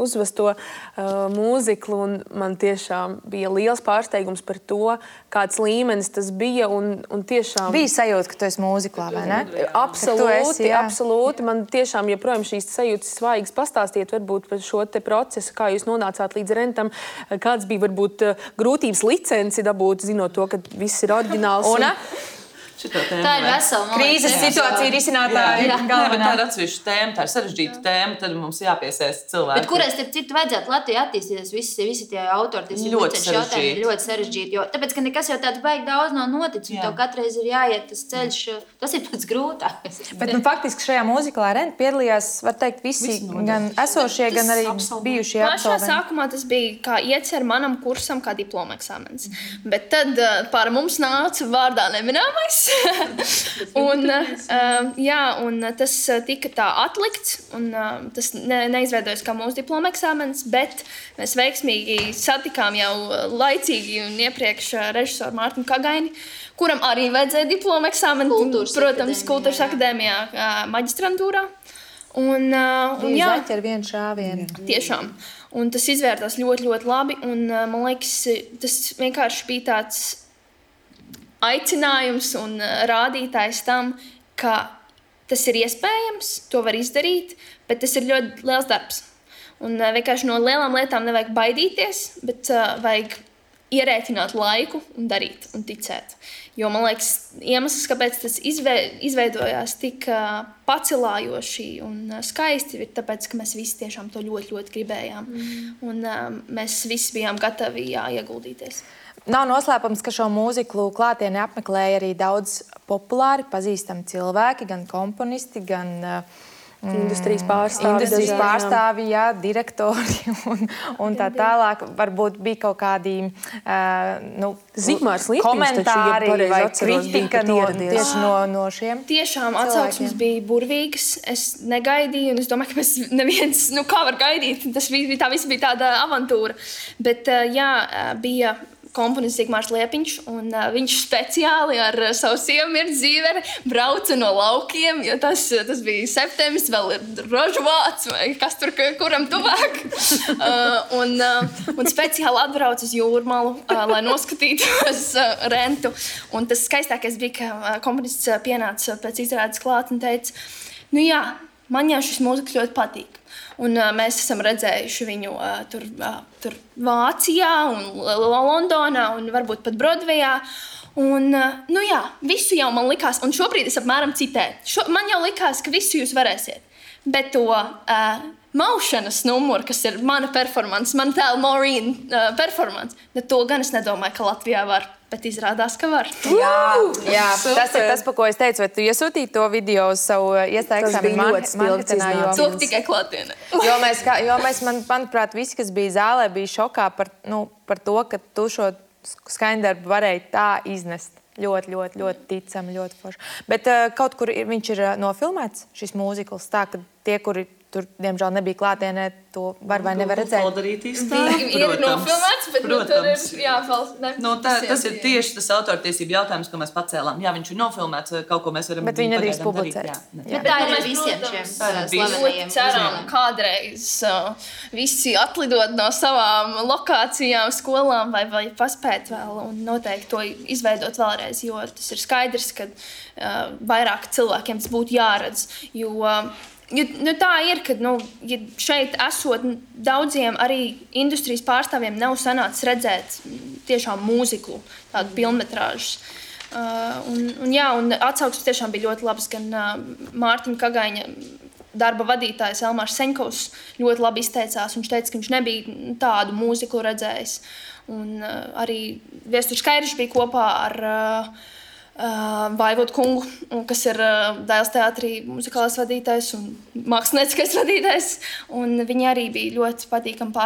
uzvesto mūziklu, un man tiešām bija liels pārsteigums par to, kāds līmenis tas bija. Un tiešām bija sajūta, ka tu esi mūziklā, vai ne? Absolūti. Man tiešām joprojām šīs sajūtas svaigas pastāstiet varbūt par šo te procesu, kā jūs nonācāt līdz Rentam, kāds bija varbūt grūtības licenci dabūt, zinot to, ka viss ir oriģināls. Tā ir vesela krīzes situācija risinātāja galvenā. Tā ir atsevišķa tēma, tā ir sarežģīta tēma, tad mums jāpiesaista cilvēki. Bet kurai starp citu vajadzētu Latvijā attīstīties, visi tie autori, tas ir ļoti sarežģīti, jo tāpēc, ka nekas jau tāds baigi daudz nav noticis, un tev katreiz ir jāiet tas ceļš, tas ir pats grūtākais. Bet faktiski šajā mūziklā Renta piedalījās, var teikt, visi gan esošie, gan arī bijušie absolventi. Pašā sākumā tas bija kā iecer manam kursam kā diploma eksāmens, bet tad pār mums nāca vārdā neminēmais. un tas tika tā atlikts, un tas neizveidojas kā mūsu diploma eksāmens, bet mēs veiksmīgi satikām jau laicīgi un iepriekš režisoru Mārtiņu Kagaini, kuram arī vajadzēja diploma eksāmenu, protams, Kultūras akadēmijā maģistrantūrā. Jā, ar vienu šāvienu. Tiešām. Un tas izvērtās ļoti, ļoti labi, un man liekas, tas vienkārši bija tāds aicinājums un rādītājs tam, ka tas ir iespējams, to var izdarīt, bet tas ir ļoti liels darbs. Un vienkārši no lielām lietām nevajag baidīties, bet vajag ierēķināt laiku un darīt un ticēt. Jo, man liekas, iemesls, kāpēc tas izveidojās tik pacelājoši un skaisti, ir tāpēc, ka mēs visi tiešām to ļoti, ļoti gribējām. Un mēs visi bijām gatavi ieguldīties. Nav noslēpums, ka šo mūziklu klātieni apmeklēja arī daudz populāri pazīstami cilvēki, gan komponisti, gan industrijas pārstāvji, jā, direktori un tā tālāk. Varbūt bija kaut kādi komentāri vai kritika tieši no šiem. Tiešām atsauksmes bija burvīgas. Es negaidīju, un es domāju, ka mēs neviens, kā var gaidīt, tā viss bija tāda avantūra. Bet jā, bija komponists Zigmārs Liepiņš, un viņš speciāli ar savu sievu Mirtu Zīveri brauca no laukiem, jo tas bija septembris, vēl ir rožvāts, vai kas tur kuram tuvāk. Un speciāli atbrauca uz Jūrmalu, lai noskatītos Rentu. Un tas skaistākais bija, ka komponists pienāca pēc izrādes klāt un teica, jā, man jau šis mūzikas ļoti patīk. Un mēs esam redzējuši viņu tur Vācijā un Londonā un varbūt pat Brodvejā. Un, jā, visu jau man likās, un šobrīd es apmēram citēju. Man jau likās, ka visu jūs varēsiet. Bet to maušanas numuru, kas ir mana performance, mana tēla Maureen performance, to gan es nedomāju, ka Latvijā var. Bet izrādās, ka var. Jā, tas ir tas, pa ko es teicu, vai tu iesūtīji to video uz savu iestāju eksāmenu marketinā? To tikai klātienē. Jo mēs, manuprāt, visi, kas bija zālē, bija šokā par to, ka tu šo skaņdarbu varēji tā iznest. ļoti ticami, ļoti forši. Bet kaut kur viņš ir nofilmēts, šis mūzikls, tā, ka tie, kuri tur, diemžēl, nebija klātienē, to var vai nevar redzēt. Ir nofilmēts, bet tur ir jāfalst. Tas ir tieši tas autortiesību jautājums, ko mēs pacēlām. Jā, viņš ir nofilmēts, kaut ko mēs varam bet viņi nedrīkst publicēt. Bet tā ir visiem šiem slavenajiem. Ceram, kādreiz visi atlidot no savām lokācijām, skolām vai paspēt vēl un noteikti to izveidot vēlreiz, jo tas ir skaidrs, ka vairāk cilvēkiem tas būtu jāredz, jo tā ir, ka ja šeit esot daudziem arī industrijas pārstāvjiem nav sanācis redzēt tiešām mūziklu, tādu pilnmetrāžus. Un atsauksmes tiešām bija ļoti labas, gan Mārtiņa Kagaiņa darba vadītājs Elmārs Seņkovs ļoti labi izteicās. Viņš teica, ka viņš nebija tādu mūziklu redzējis. Un arī Viesturs Kairišs bija kopā ar Vaivodu kungu, kas ir Dailes teātrī muzikālais vadītājs un mākslinieckais vadītājs. Un viņi arī bija ļoti patīkami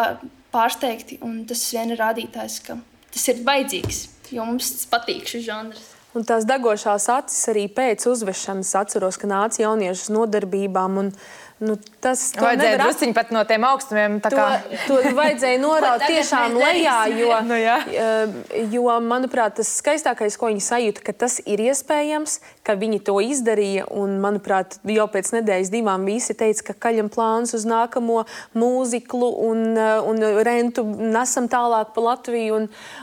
pārsteigti. Un tas vien ir rādītājs, ka tas ir vajadzīgs, jo mums patīk šis žanrs. Un tās degošās acis arī pēc uzvešanas atceros, ka nāca jaunieši uz nodarbībām. Tas vajadzēja drusciņi pat no tiem augstumiem. To vajadzēja noraut tiešām lejā, jo, manuprāt, tas skaistākais, ko viņi sajūta, ka tas ir iespējams, ka viņi to izdarīja. Un, manuprāt, jau pēc nedēļas 2 visi teica, ka kaļam plāns uz nākamo mūziklu un rentu nesam tālāk pa Latviju.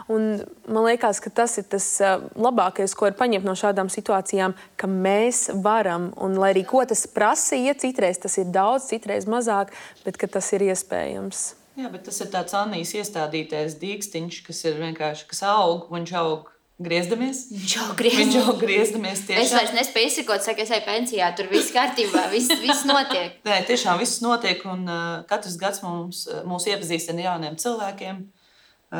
Un man liekas, ka tas ir tas labākais, ko var paņemt no šādām situācijām, ka mēs varam. Un, lai arī ko tas prasīja, citreiz tas ir daudz, citreiz mazāk, bet ka tas ir iespējams. Jā, bet tas ir tāds Annijas iestādītais dīkstiņš, kas ir vienkārši, kas aug, viņš aug griezdamies. Viņš aug griezdamies tiešām. Es vairs nespēju izsakot, saka, es eju pensijā, tur viss kārtībā, viss notiek. Nē, tiešām viss notiek, un katrs gads mūs iepazīstina ar jauniem cilvēkiem,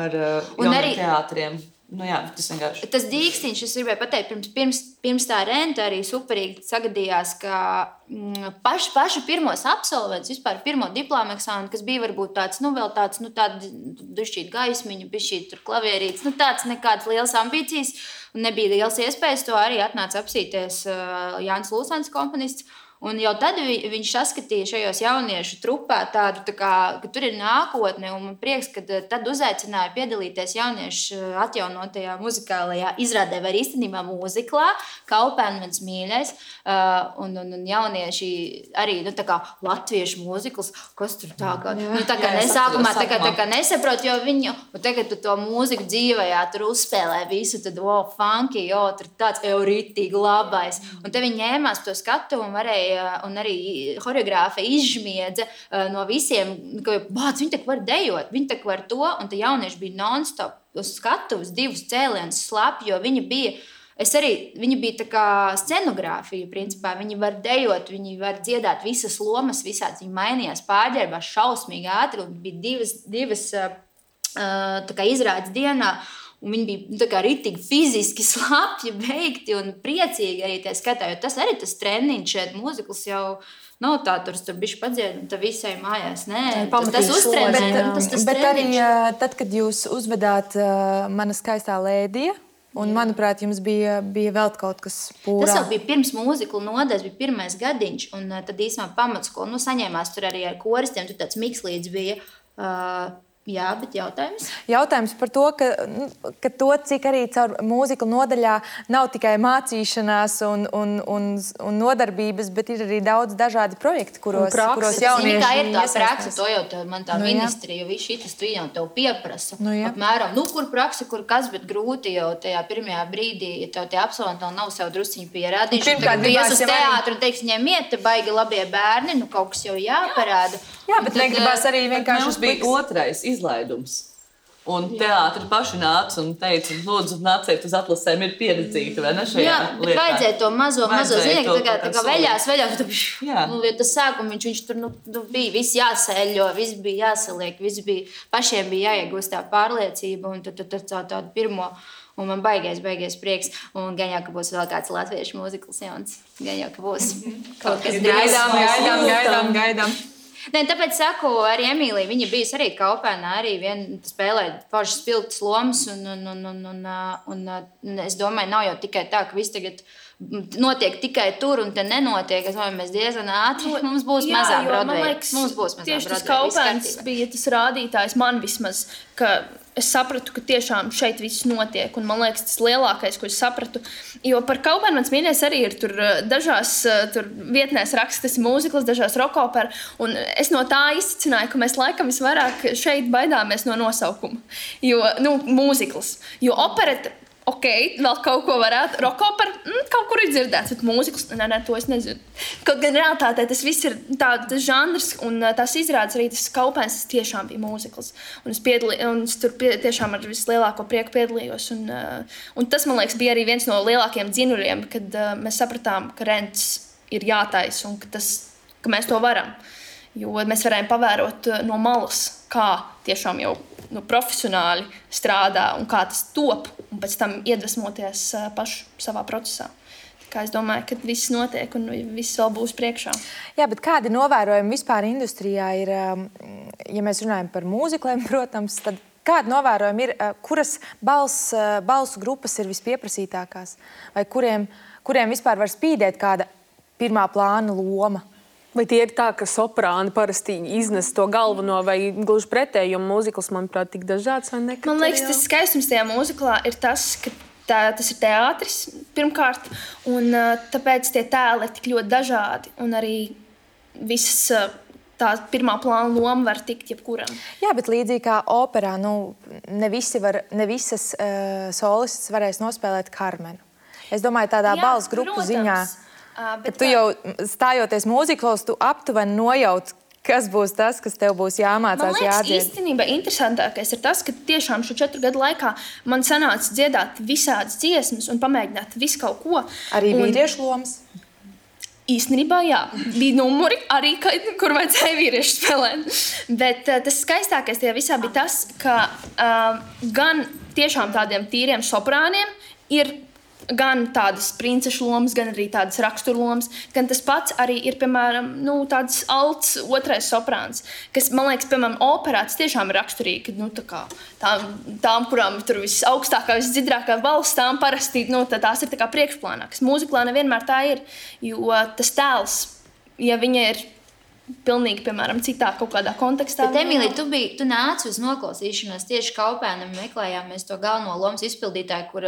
ar jauniem teātriem. Jā, tas vienkārši. Tas dīkstiņš, es gribēju pateikt, pirms tā renta arī superīgi sagadījās, ka pašu pirmos absolventus, vispār pirmo diplomu eksāmenu, kas bija varbūt tāds, vēl tāds, tāda dušķīt gaismiņu, bišķīt tur klavierītes, tāds nekādas lielas ambīcijas, un nebija liels iespējas, to arī atnāca apsīties Jānis Lūsens komponists. Un jau tad viņš saskatīja šajos jauniešu trupā tādu, ka tur ir nākotne, un man prieks, ka tad uzaicināja piedalīties jauniešu atjaunotajā muzikālajā izrādē vai īstenībā mūziklā, Kaupēn mans mīļais, un jaunieši arī, latviešu mūzikls, kas tur tā kā nesākumā nesaprot, jo viņu, un tagad tu to mūziku dzīvajā tur uzspēlē visu, tad, funky, tur tāds ritīgi labais, un te viņi ņēmās to skatu un varēja un arī horeogrāfa izžmiedza no visiem, ka viņi tak var dejot, viņi tak var to, un te jaunieši bija non-stop uz skatuves 2 cēlienus slapji, jo viņi bija tā kā scenogrāfija, principā. Viņi var dejot, viņi var dziedāt visas lomas, visāds, viņi mainījās pārģērbās šausmīgi ātri, un bija divas tā kā izrādes dienā, un viņi bija tā kā ritīgi fiziski slapji, beigti un priecīgi arī tie skatā, jo tas arī tas treniņš šeit mūzikls jau nav tā, tur bišķi padzied, un tā visai mājās, nē, tas uztrenē. Bet arī tad, kad jūs uzvedāt Mana skaistā lēdija, un, manuprāt, jums bija vēl kaut kas pūrā. Tas jau bija pirms mūziklu nodaļas, bija pirmais gadiņš, un tad īsumā pamatskolu, saņēmās tur arī ar koristiem, tur tāds mikslīdz bija. Jā, bet jautājums? Jautājums par to, ka to, cik arī caur mūziklu nodaļā nav tikai mācīšanās un nodarbības, bet ir arī daudz dažādi projekti, kuros jaunieši kā ir tā praksa, to jau man tā ministrija, jo viss šitas tu jau tev pieprasa. Apmēram, kur praksa, kur kas, bet grūti jau tajā pirmajā brīdī, ja tev tie absolventi vēl nav sev drusciņu pierādījuši. Tagad ies uz teātru un teiks, ņemiet, te baigi labie bērni, kaut kas jau jāparāda. Jā, bet negribās arī vienkārši... Mums bija otrais izlaidums. Un teātri paši nāca un teica, lūdzu, nāciet uz atlasēm, ir pieredzīta, vai ne šajā lietā? Jā, bet vajadzēja to mazo zinieki, tā kā veļās, jo tas sākums, viņš tur bija, viss jāsēļo, viss bija jāsaliek, pašiem bija jāiegūst tā pārliecība, un tad tādu pirmo, un man baigais prieks, un gan jau, ka būs vēl kāds latviešu mūzikls jauns, gan jau, ka būs kaut kas gaidām. Nē, tāpēc saku, arī Emīlija, viņa bijusi arī Kaupēnā, arī spēlēja pašas spilgtas lomas, un es domāju, nav jau tikai tā, ka viss tagad notiek tikai tur un te nenotiek. Es domāju, mēs diezgan ātri, mums būs mazā Broadway. Mums būs mazā tieši tas Broadway, Kaupēns bija tas rādītājs man vismaz, ka es sapratu, ka tiešām šeit viss notiek. Un man liekas, tas lielākais, ko es sapratu. Jo par Kaupēnu mans mīļais arī ir tur dažās tur vietnēs raksta, tas ir mūzikls, dažās rokoperu. Un es no tā izcināju, ka mēs laikam visvairāk šeit baidāmies no nosaukuma. Jo, mūzikls. Jo opereta, ok, vēl kaut ko varētu. Rokoperu, kaut kur ir dzirdēts, bet mūzikls, nē, to es nezinu. Kaut gan realitātē tas viss ir tas žanrs, un tās izrādes arī tas Kaupēns, tas tiešām bija mūzikls. Un es tur tiešām ar vislielāko prieku piedalījos. Un tas, man liekas, bija arī viens no lielākiem dzinuļiem, kad mēs sapratām, ka rents ir jātais un ka mēs to varam. Jo mēs varējām pavērot no malas, kā tiešām jau profesionāli strādā un kā tas top, un pēc tam iedvesmoties pašu savā procesā. Kā es domāju, ka viss notiek un viss vēl būs priekšā. Jā, bet kādi novērojumi vispār industrijā ir, ja mēs runājam par mūzikliem, protams, tad kādi novērojumi ir, kuras balsu grupas ir vispieprasītākās? Vai kuriem vispār var spīdēt kāda pirmā plāna loma? Vai tie ir tā, ka soprāni parasti iznes to galveno vai gluži pretēji, jo mūzikls, manuprāt, tik dažāds vai nekad? Man liekas, tas skaistums tajā mūziklā ir tas, ka tas ir teātris pirmkārt, un tāpēc tie tēli ir tik ļoti dažādi, un arī visas tā pirmā plāna loma var tikt jebkuram. Jā, bet līdzīgi kā operā, ne visas solists varēs nospēlēt Karmenu. Es domāju, tādā balss grupu ziņā. Bet tu jau stājoties mūziklos, tu aptuveni nojauti, kas būs tas, kas tev būs jāmācās, jādzied. Man liekas, īstenībā interesantākais ir tas, ka tiešām šo 4 gadu laikā man sanāca dziedāt visādas dziesmas un pamēģināt visu kaut ko. Arī vīriešu lomas? Īstenībā, jā. Bija numuri arī, kur vajadzēja vīriešu spēlēt. Bet tas skaistākais tajā visā bija tas, ka gan tiešām tādiem tīriem soprāniem ir gan tādas princešu lomas, gan arī tādas raksturlomas, gan tas pats arī ir, piemēram, tāds alts otrais soprāns, kas, man liekas, piemēram, operā tas tiešām ir raksturīgi, tām, kurām tur visaugstākā, visdziļākā balss, tām parasti, tās ir tā kā priekšplānā, kas mūziklā nevienmēr tā ir, jo tas tēls, ja viņa ir pilnīgi, piemēram, citā kaut kādā kontekstā. Bet, Emīlija, tu nāci uz noklausīšanos tieši Kaupēnam, meklējāmies to galveno lomas izpildītāju, kur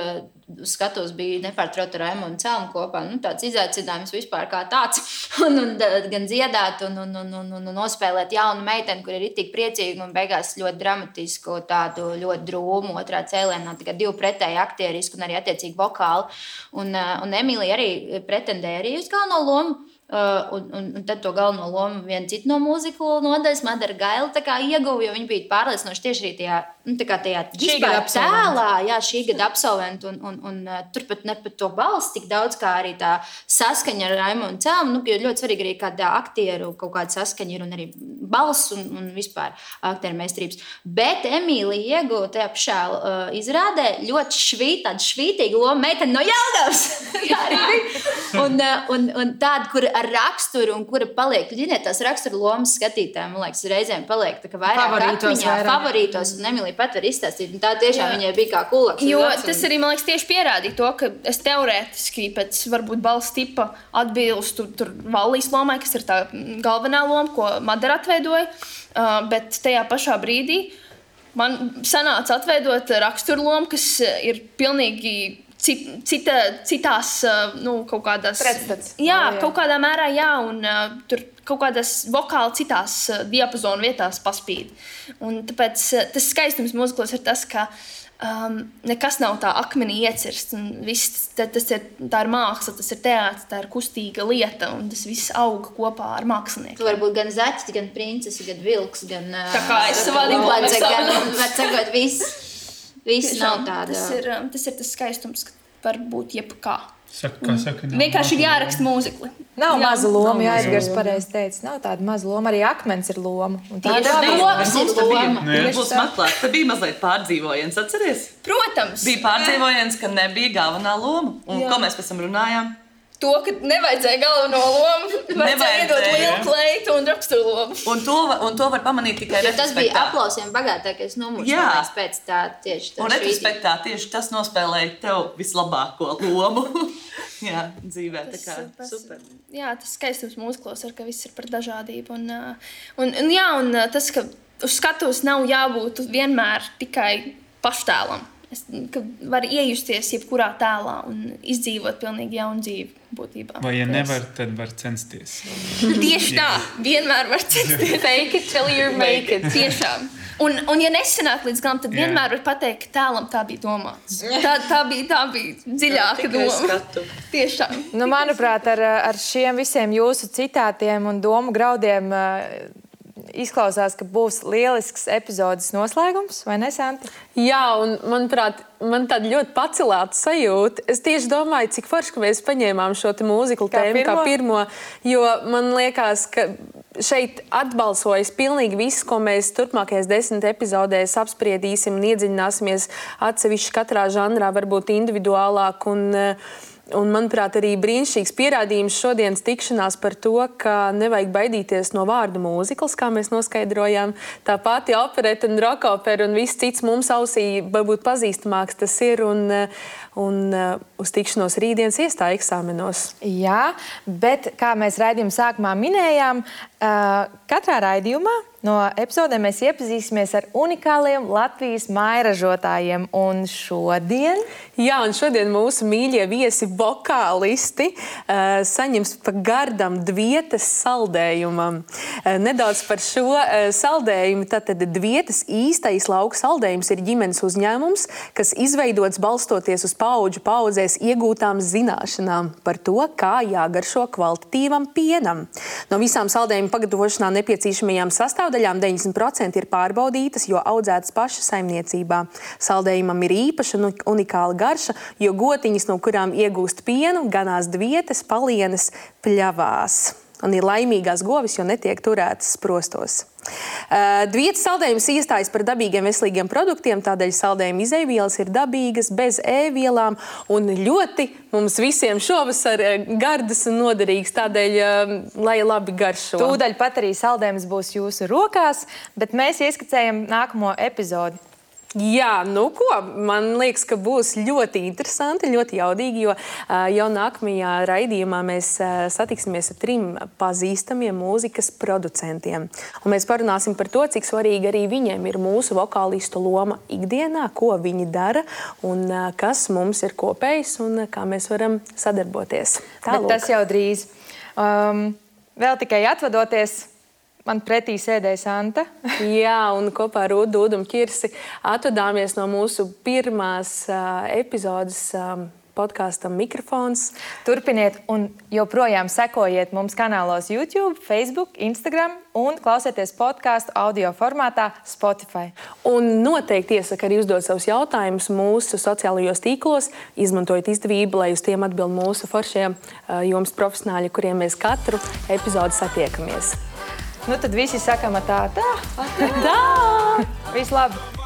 skatos bija nepārtraukti ar Raimonu Celmu kopā. Tāds izaicinājums vispār kā tāds. Un gan dziedāt un nospēlēt jaunu meiteni, kur ir tik priecīga un beigās ļoti dramatisku, tādu ļoti drūmu otrā cēlienā, tikai 2 pretēji aktierisku un arī attiecīgi vokāli. Un Emīlija arī pretendēja arī uz galveno lomu. Un tad to galveno lomu viena cita no mūziklu nodaļas, Madara Gaila, tā kā ieguva, jo viņa bija pārliecinoši tieši arī tajā vispār tēlā, jā, šī gada absolventi, un turpat ne pat to balsi tik daudz, kā arī tā saskaņa ar Raimonu Celmu, jo ļoti svarīgi arī kādā aktieru kaut kāda saskaņa ir un arī balss un vispār aktieru meistarības. Bet Emīlija ieguva tajā pašā izrādē ļoti tādu švītīgu lomu meiteni no Jelgavas. Jā, arī bija. Un tādu, kur ar raksturu un kura paliek, tās raksturu lomas skatītājiem, man liekas, reizēm paliek tā kā vairāk atmiņā, favorītos, un Emīlija pat var izstāstīt, un tā tiešām viņai bija kā kulaks. Jo tas arī, man liekas, tieši pierādīja to, ka es teorētiski pēc varbūt balss tipa atbilstu tur Vallijas lomai, kas ir tā galvenā loma, ko Madara atveidoja, bet tajā pašā brīdī man sanāca atveidot raksturu lomu, kas ir pilnīgi citās, kaut kādās... Pretstats. Jā, kaut kādā mērā, jā, un tur kaut kādās vokāli citās diapazonu vietās paspīd. Un tāpēc tas skaistums mūziklos ir tas, ka nekas nav tā akmenī iecirsts, un viss, tā ir māksla, tas ir teātris, tā ir kustīga lieta, un tas viss auga kopā ar mākslinieku. Tu vari būt gan zaķis, gan princesi, gan vilks, gan... Tā kā es savā gan viss nav tāda. Tas ir tas skaistums, ka var būt jebkā. Saka, vienkārši ir jāraksta mūzikli. Nav maza loma, jā, Edgars pareizi teica. Nav tāda maza loma, arī akmens ir loma. Tā ir loma. Būs maklāt. Te bija mazliet pārdzīvojiens, atceries? Protams. Bija pārdzīvojiens, ka nebija galvenā loma. Un ko mēs pēc tam runājām? to, ka nevajadzēja galveno lomu, vajadzēja iedot lielu kleitu un raksturu lomu. Un to var pamanīt tikai retrospektā. Tas bija aplausiem bagātākais numurs, pēc tā tieši tā. Un retrospektā tieši tas nospēlēja tev vislabāko lomu. Jā, dzīvē, tā kā super. Jā, tas skaistums mūziklos ar, ka viss ir par dažādību. Un tas, ka uz skatuves nav jābūt vienmēr tikai paštēlam. Ka var iejusties jebkurā tēlā un izdzīvot pilnīgi jaunu dzīvi būtībā. Vai ja nevar, tad var censties. Tieši tā, vienmēr var censties. Fake it till you make it. Tiešām. Un ja nesanāk līdz galam, tad vienmēr var pateikt, ka tēlam tā bija domāts. Tā bija dziļāka doma. Tieši tā. Nu, manuprāt, ar šiem visiem jūsu citātiem un domu graudiem izklausās, ka būs lielisks epizodes noslēgums, vai ne, Santa? Jā, un manuprāt, man tāda ļoti pacelāta sajūta. Es tieši domāju, cik forši, ka mēs paņēmām šo mūziklu tēmu kā pirmo, jo man liekas, ka šeit atbalsojas pilnīgi viss, ko mēs turpmākajās 10 epizodēs apspriedīsim un iedziļināsimies atsevišķi katrā žanrā, varbūt individuālāk un, manuprāt, arī brīnišķīgs pierādījums šodienas tikšanās par to, ka nevajag baidīties no vārdu mūzikls, kā mēs noskaidrojām. Tā pati opereta un rokopera un viss cits mums ausī varbūt pazīstamāks tas ir un uz tikšanos rītdienas iestāja eksāmenos. Jā, bet kā mēs raidījuma sākumā minējām, katrā raidījumā no epizodēm mēs iepazīsimies ar unikāliem Latvijas mājražotājiem. Un šodien? Jā, un šodien mūsu mīļie viesi vokālisti saņems pa gardam Dvietas saldējumam. Nedaudz par šo saldējumu. Tātad Dvietas īstais lauku saldējums ir ģimenes uzņēmums, kas izveidots balstoties uz paudžu paudzēs iegūtām zināšanām par to, kā jāgaršo kvalitatīvam pienam. No visām saldējuma pagatavošanā nepieciešamajām sastāvdaļām 90% ir pārbaudītas, jo audzētas paša saimniecībā. Saldējumam ir īpaša un unikāla garša, jo gotiņas, no kurām iegūst pienu, ganās Dvietas palienes pļavās. Un ir laimīgās govis, jo netiek turētas sprostos. Dvietas saldējums iestājas par dabīgiem veselīgiem produktiem, tādēļ saldējuma izejvielas ir dabīgas, bez e-vielām un ļoti mums visiem šovasar gardas un noderīgas, tādēļ, lai labi garšo. Tūdaļ pat arī saldējums būs jūsu rokās, bet mēs ieskicējam nākamo epizodi. Jā, nu ko, man liekas, ka būs ļoti interesanti, ļoti jaudīgi, jo jau nākamajā raidījumā mēs satiksimies ar 3 pazīstamiem mūzikas producentiem. Un mēs parunāsim par to, cik svarīgi arī viņiem ir mūsu vokālistu loma ikdienā, ko viņi dara un kas mums ir kopējs un kā mēs varam sadarboties. Bet tas jau drīz. Vēl tikai atvadoties. Man pretī sēdēja Santa. Jā, un kopā ar Udu un Kirsi atvadāmies no mūsu pirmās epizodes podkāstam Mikrofons. Turpiniet un joprojām sekojiet mums kanālos YouTube, Facebook, Instagram un klausieties podkāstu audio formātā Spotify. Un noteikti iesaka arī uzdot savus jautājumus mūsu sociālajos tīklos. Izmantojiet izdevību, lai uz tiem atbild mūsu foršie jomas profesionāļi, kuriem mēs katru epizodi satiekamies. Nu tad visi sakam tā. Tā! Viss labi!